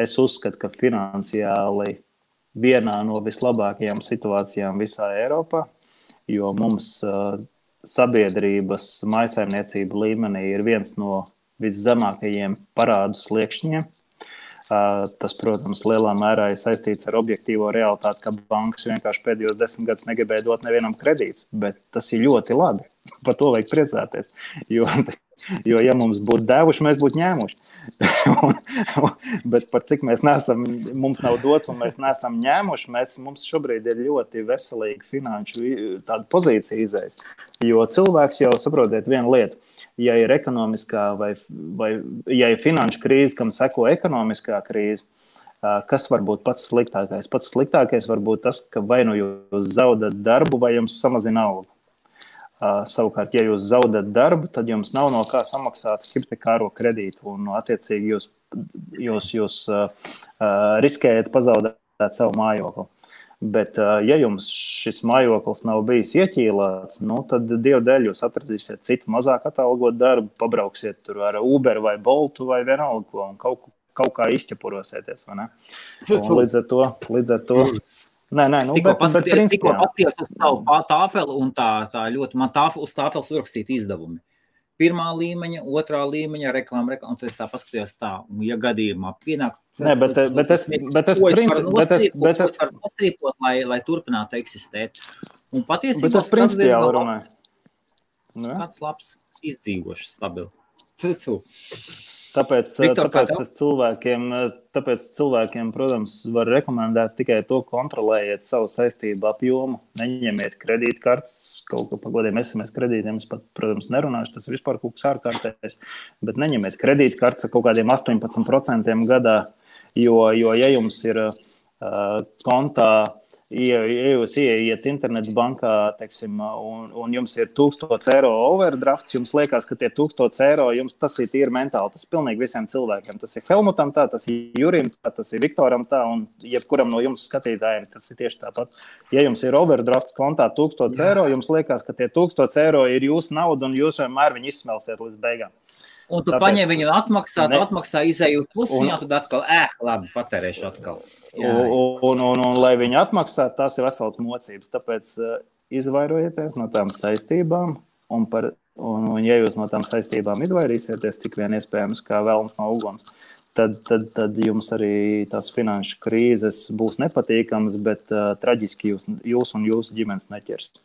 es uzskatu, ka finansiāli vienā no vislabākajām situācijām visā Eiropā, jo mums sabiedrības mājsaimniecība līmenī ir viens no viszemākajiem parādu sliekšņiem. Tas, protams, lielā mērā ir saistīts ar objektīvo realitāti, ka bankas vienkārši pēdējos 10 gadus negribēja dot nevienam kredītus, bet tas ir ļoti labi. Par to vajag priecāties, jo ja mums būtu devuši, mēs būtu ņēmuši. Bet par cik mums nav dots un mēs neesam ņēmuši, mums šobrīd ir ļoti veselīga finanšu tāda pozīcija izējas. Jo cilvēks jau saprotiet vienu lietu. Ja ir ekonomiskā vai ja ir finanšu krīze, kam seko ekonomiskā krīze, kas var būt pats sliktākais? Pats sliktākais var būt tas, ka vai nu jūs zaudat darbu, vai jums samazina algu. Savukārt, ja jūs zaudat darbu, tad jums nav no kā samaksāt hipotekāro kredītu, un attiecīgi jūs riskējat pazaudēt savu mājokli. Bet, ja jums šis mājoklis nav bijis ieķīlāts, tad dievdēļ jūs atradīsiet citu mazāk atalgot darbu, pabrauksiet tur ar Uber vai Boltu vai vienalga, un kaut kā izķepurosieties, vai ne? Un līdz ar to. Nē, tikko paskatījos uz savu tāfeli, un tā ļoti man uz tāfeles uzrakstīt izdevumi. Pirmā līmeņa, otrā līmeņa, reklāma, un tad es tā paskatījos tā, un ja gadījumā pienāk... Nē, bet es varu nostrīpot, lai turpinātu eksistēt. Un patiesībā... Bet es principiāli runāju. Kāds labs, izdzīvošs, stabili. Tāpēc cilvēkiem, protams, var rekomendēt tikai to, kontrolējiet savu saistību apjomu, neņemiet kredītkartes, kaut ko par godiem SMS kredītiem, es pat, protams, nerunāšu, tas vispār kaut kas ārkārtējs, bet neņemiet kredītkartes kaut kādiem 18% gadā, jo ja jums ir kontā ja jūs ieiet internetu bankā, teiksim, un jums ir 1000 eiro overdrafts, jums liekas, ka tie 1000 eiro, jums tas ir tīri mentāli, tas ir pilnīgi visiem cilvēkiem. Tas ir Helmutam tā, tas ir Jurim tā, tas ir Viktoram tā, un jebkuram no jums skatītājiem tas ir tieši tāpat. Ja jums ir overdrafts kontā 1000 eiro, jums liekas, ka tie 1000 eiro ir jūsu nauda, un jūs vienmēr viņu izsmelsiet līdz beigām. Un tu paņem viņu atmaksā, izēju plusiņā, tad atkal, labi, patērēšu atkal. Un lai viņi atmaksā, tas ir vesels mocības. Tāpēc izvairojieties no tām saistībām, un ja jūs no tām saistībām izvairīsieties, cik vien iespējams, kā velns no uguns, tad jums arī tās finanšu krīzes būs nepatīkamas, bet traģiski jūs un jūsu ģimenes neķers.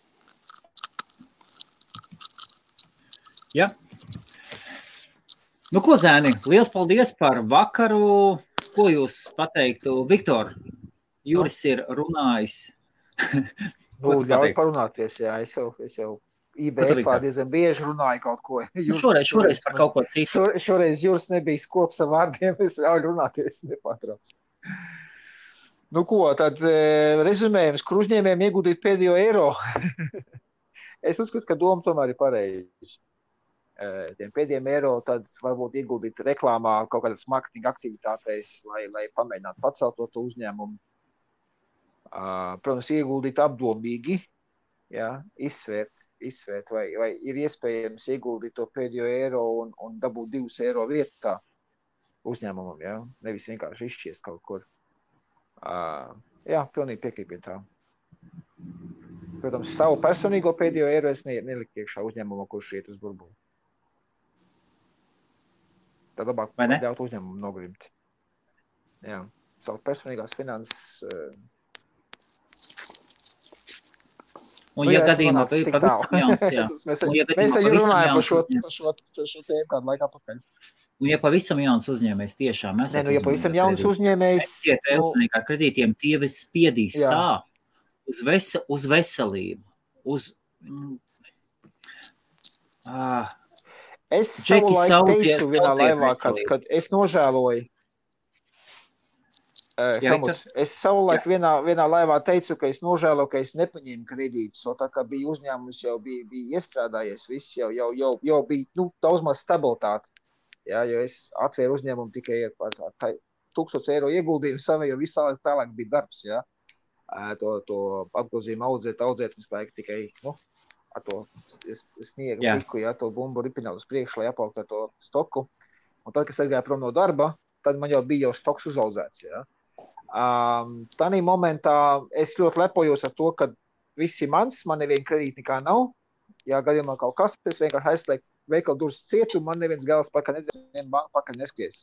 Ja. Nu, ko, zēni, liels paldies par vakaru. Ko jūs pateiktu? Viktor, Juris ir runājis. Ļauj parunāties, jā. Es jau IBF-ā diezgan bieži runāju kaut ko. Šoreiz par kaut ko citu. Šoreiz Juris nebija skops ar vārdiem, es ļauju runāties nepārtrauc. Nu ko, tad rezumējums, kur uzņēmējiem ieguldīt pēdējo eiro. Es uzskatu, ka doma tomēr ir pareizi. Tiem pēdējiem eiro tad varbūt ieguldīt reklāmā, kaut kādas marketinga aktivitātēs, lai pamēģinātu pacelt to uzņēmumu. Protams, ieguldīt apdomīgi, jā, izsvērt, vai ir iespējams ieguldīt to pēdējo eiro un dabūt 2 eiro vietā uzņēmumam, jā, nevis vienkārši izšķiest kaut kur. Jā, pilnīgi piekrītu tā. Protams, savu personīgo pēdējo eiro es neliku iekšā uzņēmumā, kurš iet uz burbuli. Tad labāk ļaut uzņēmumu nogrimt. Jā, savu personīgās finanses. Un ja gadījumā pavisam jauns, jā. Mēs jau runājam par šo tēmu kādu laikā pakaļ. Un ja pavisam jauns uzņēmējs tiešām esat ja pavisam jauns uzņēmējs. Esiet uzmanīgi ar kredītiem, tie spiedīs tā uz veselību, Es savulaik teicu vienā laivā, kad es nožēloju. Es savulaik vienā laivā teicu, ka es nožēloju, ka es nepaņēmu kredītus, tā kā bija uzņēmums, jau bija iestrādājies, viss jau bija daudz maz stabilitāte. Jā, jo es atvēru uzņēmumu tikai par 1000 eiro ieguldījumu savu, jo visu tālāk bija darbs, jā. To apgrozījumu audzēt visu laiku tikai, ar to sniegu piku, to bumbu ripināt uz priekšu, lai apaugtu ar to stoku. Un tad, kad es aizgāju prom no darba, tad man jau bija stoks uzaudzēts. Ja? Tanī momentā es ļoti lepojos ar to, ka viss ir mans, man neviena kredīta nekā nav. Ja gadījumā kaut kas, es vienkārši aizslēgtu veikalu durvis cietu, man neviens gals pakaļ nedzies, neviena banka pakaļ neskries.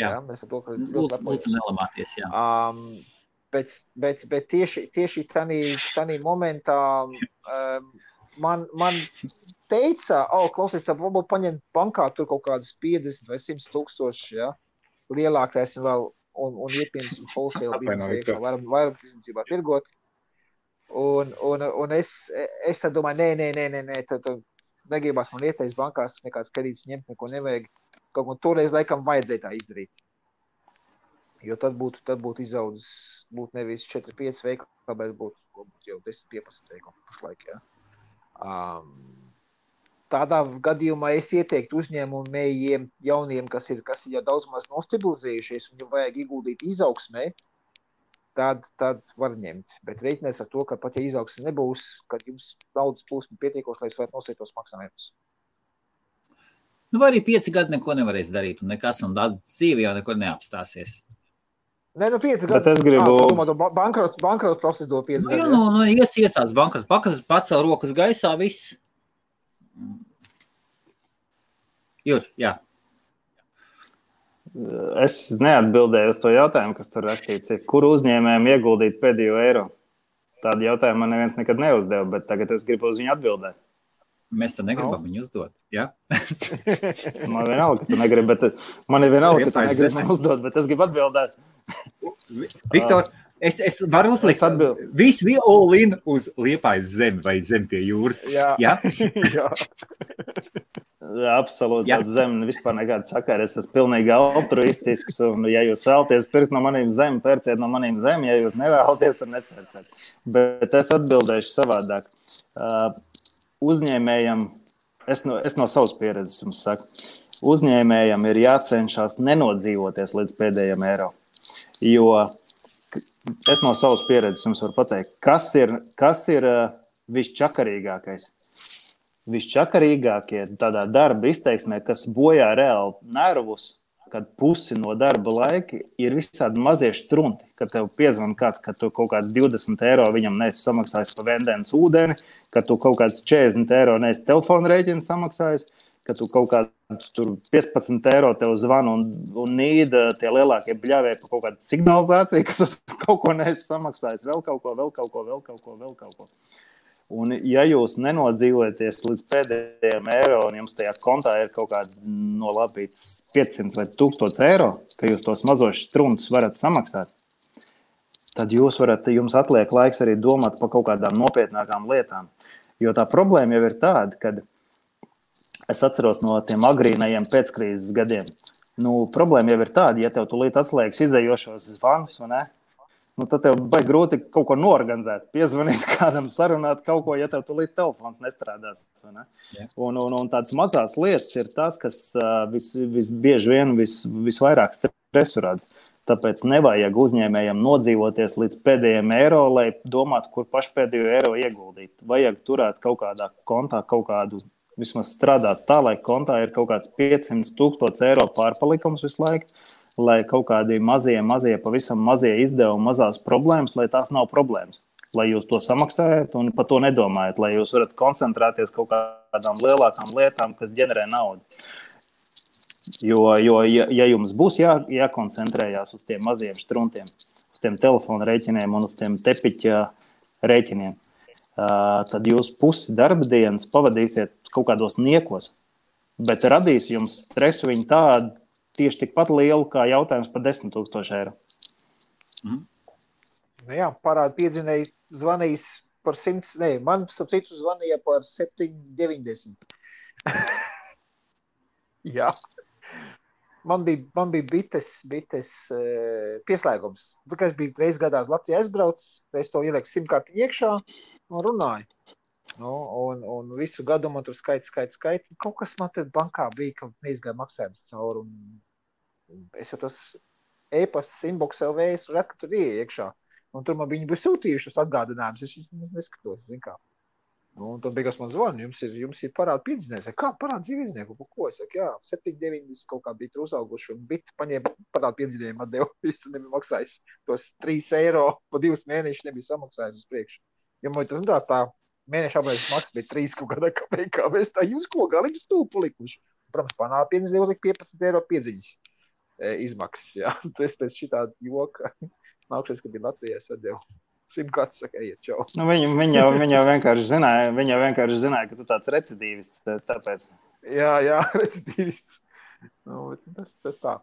Jā, mēs ar to, ka lūdzu nelamāties, jā. Bet tieši tanī momentā man teica, klausies, tā varbūt paņemt bankā tur kaut kādas 50 vai 100 tūkstoši, ja, lielākais vēl, un iepieņemsim wholesale biznesē, varam biznesībā tirgot. Un es tad domāju, nē, tad negribās man ieteikt bankās, nekāds kredīts ņemt, neko nevajag. Kaut ko toreiz laikam vajadzēja tā izdarīt. Jo tad būtu izaudzis, būtu nevis 4-5 veikali, bet būtu jau 10-15 veikali pašlaik, jā. Tādā gadījumā es ieteiktu uzņēmumiem jauniem, kas ir jau daudz maz nostabilizējušies un jau vajag ieguldīt izaugsmē, tad var ņemt. Bet reiķinās ar to, ka pat ja izaugsme nebūs, kad jums naudas plūsma pietiekoši, lai jūs varat nosēt tos maksājumus. Vai arī 5 gadi neko nevarēs darīt un nekas, un dzīve jau nekur neapstāsies. Nē, 5 gadi. Bet es gribu... Bankrots process do 5 gadi. Jā, iesāc bankrots, pacel rokas gaisā, viss. Jur, jā. Es neatbildēju uz to jautājumu, kas tur rakstīts. Kur uzņēmējiem ieguldīt pēdējo eiro? Tādu jautājumu man neviens nekad neuzdeva, bet tagad es gribu uz viņu atbildēt. Mēs to negribam viņu uzdot, jā? Man vienalga, ka tu negribi, bet man ir vienalga, ka tu negribi uzdot, bet es gribu atbildēt. Viktor, es varu uzlikt visu all in uz Liepājas zemi vai zemi pie jūras. Jā. Absolūti, zeme vispār nekāda sakara. Es esmu pilnīgi altruistisks, un ja jūs vēlaties pirkt no maniem zemi, pērciet no maniem zemi, ja jūs nevēlaties, tad nepērciet. Bet es atbildēšu savādāk. Uzņēmējam, es no savas pieredzes jums saku, uzņēmējam ir jācenšas nenodzīvoties līdz pēdējiem eiro. Jo es no savas pieredzes jums varu pateikt, kas ir visčakarīgākais. Visčakarīgākie tādā darba izteiksmē, kas bojā reāli nervus, kad pusi no darba laika ir visādi mazie štrunti, kad tev piezvan kāds, ka tu kaut kādi 20 eiro viņam neesi samaksājis pa vendēnas ūdeni, ka tu kaut kāds 40 eiro neesi telefona rēķinu samaksājis, ka tu kaut kāds tur 15 eiro tev zvana un nīda tie lielākie bļāvēji pa kaut kādu signalizāciju, ka tu kaut ko neesi samaksājis, vēl kaut ko. Un ja jūs nenodzīvojaties līdz pēdējiem eiro un jums tajā kontā ir kaut kāda nolapīts 500 vai 1000 eiro, ka jūs tos mazos štruntus varat samaksāt, tad jums atliek laiks arī domāt par kaut kādām nopietnākām lietām. Jo tā problēma jau ir tāda, kad es atceros no tiem agrīnajiem pēckrīzes gadiem. Problēma jau ir tāda, ja tev tulīt atslēgas izējošos zvanus, vai ne? Tad tev baigi grūti kaut ko norganizēt, piezvanīt kādam, sarunāt kaut ko, ja tev tulīt telefons nestrādās. Vai ne? Yeah. Un tādas mazās lietas ir tas, kas visbieži vien visvairāk stresu rada. Tāpēc nevajag uzņēmējiem nodzīvoties līdz pēdējiem eiro, lai domātu, kur pašpēdējo eiro ieguldīt. Vajag turēt kaut kādā kontā kaut kādu, vismaz strādāt tā, lai kontā ir kaut kāds 500,000 eiro pārpalikums visu laiku, lai kaut kādi mazie, pavisam mazie izdevumi, mazās problēmas, lai tās nav problēmas. Lai jūs to samaksājat un par to nedomājat, lai jūs varat koncentrēties kaut kādām lielākām lietām, kas ģenerē naudu. Jo ja jums būs jākoncentrējās uz tiem maziem štruntiem, uz tiem telefona rēķiniem un uz tiem tepiķa rēķiniem, tad jūs pusi darba dienas pavadīsiet kaut kādos niekos, bet radīs jums stresu viņi tādu, tieši tikpat lielu kā jautājums par 10,000 eiro. Jā, parāda piedzinēji zvanījis par 100, man citu zvanīja par 7,90. Jā. Man bija bites pieslēgums. Tā kā es biju reiz gadā uz Latviju aizbraucis, es to ielieku simkartiņu iekšā un runāju. Un visu gadu man tur skaits. Kaut kas man tad bankā bija, ka neizgāja maksājums cauri. Es jau tas e-pasts inbox LV, es redzu, ka tur iekšā. Un tur man viņi bija sūtījušas atgādinājumus. Es neskatos, zin kā. Un tad beigās man zvana, jums ir parāda piedzinējums. Kā parāda dzīvīznieku? Ko? Es saku, jā, 7,90 kaut kā bija tur uzauguši. Un bit paņēma parāda piedzinējumu atdevu. Viņš tur nebija maksājis. Tos 3 eiro pa 2 mēnešus nebija samaksājis uz priekšu. Ja man tas tā mēneša apmērs maksas bija 3 kaut kādā kapekā. Mēs tā jūs ko galīgi stūpu likuši. Protams, panāda piedzinējumu lika 15 eiro piedziņas izmaksas. Jā. Es pēc šitā joka nākšies, ka bija Latvijā sadevu. Simkārts saka, ejiet, čau. Viņa jau vienkārši zināja, ka tu tāds recidīvists, tāpēc. Jā, recidīvists. Tas tā.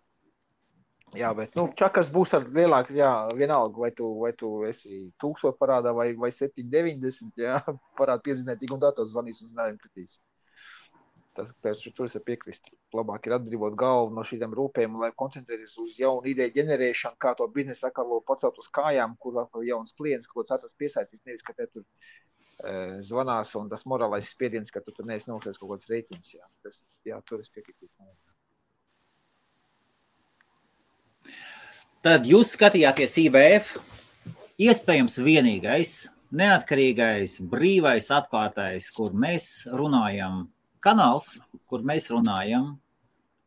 Jā, bet, čakars būs ar lielāku, jā, vienalga, vai tu esi 1000 parādā vai 7,90, jā, parāda piedzinēt, tik un tā to zvanīs un znājumi kritīs. Tur es piekrist. Labāk ir atbrīvot galvu no šīm rūpēm, lai koncentrēties uz jaunu ideju ģenerēšanu, kā to biznesu atkal pacelt uz kājām, kur vēl jauns klients, ko atrast piesaistīs, nevis, ka te tur zvanās un tas morālais spiediens, ka tu tur neesi nokrēs kaut kāds rēķins. Jā, tur es piekrītu. Tad jūs skatījāties IBF, iespējams vienīgais, neatkarīgais, brīvais, atklātais, kur mēs runājam, kanāls, kur mēs runājam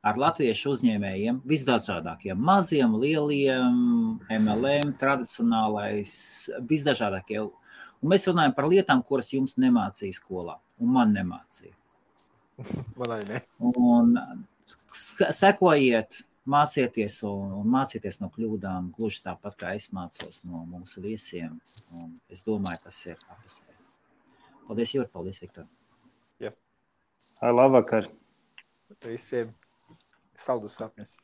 ar latviešu uzņēmējiem, visdažādākiem, maziem, lieliem, MLM, tradicionālais, visdažādākie. Un mēs runājam par lietām, kuras jums nemācīja skolā, un man nemācīja. Man arī ne. Un sekojiet, mācieties un mācieties no kļūdām, gluži tāpat, kā es mācos no mūsu viesiem. Un es domāju, tas ir apusēji. Paldies, Jūri, paldies, Viktor. Jā. Labvakar. Visiem saldus sapņus.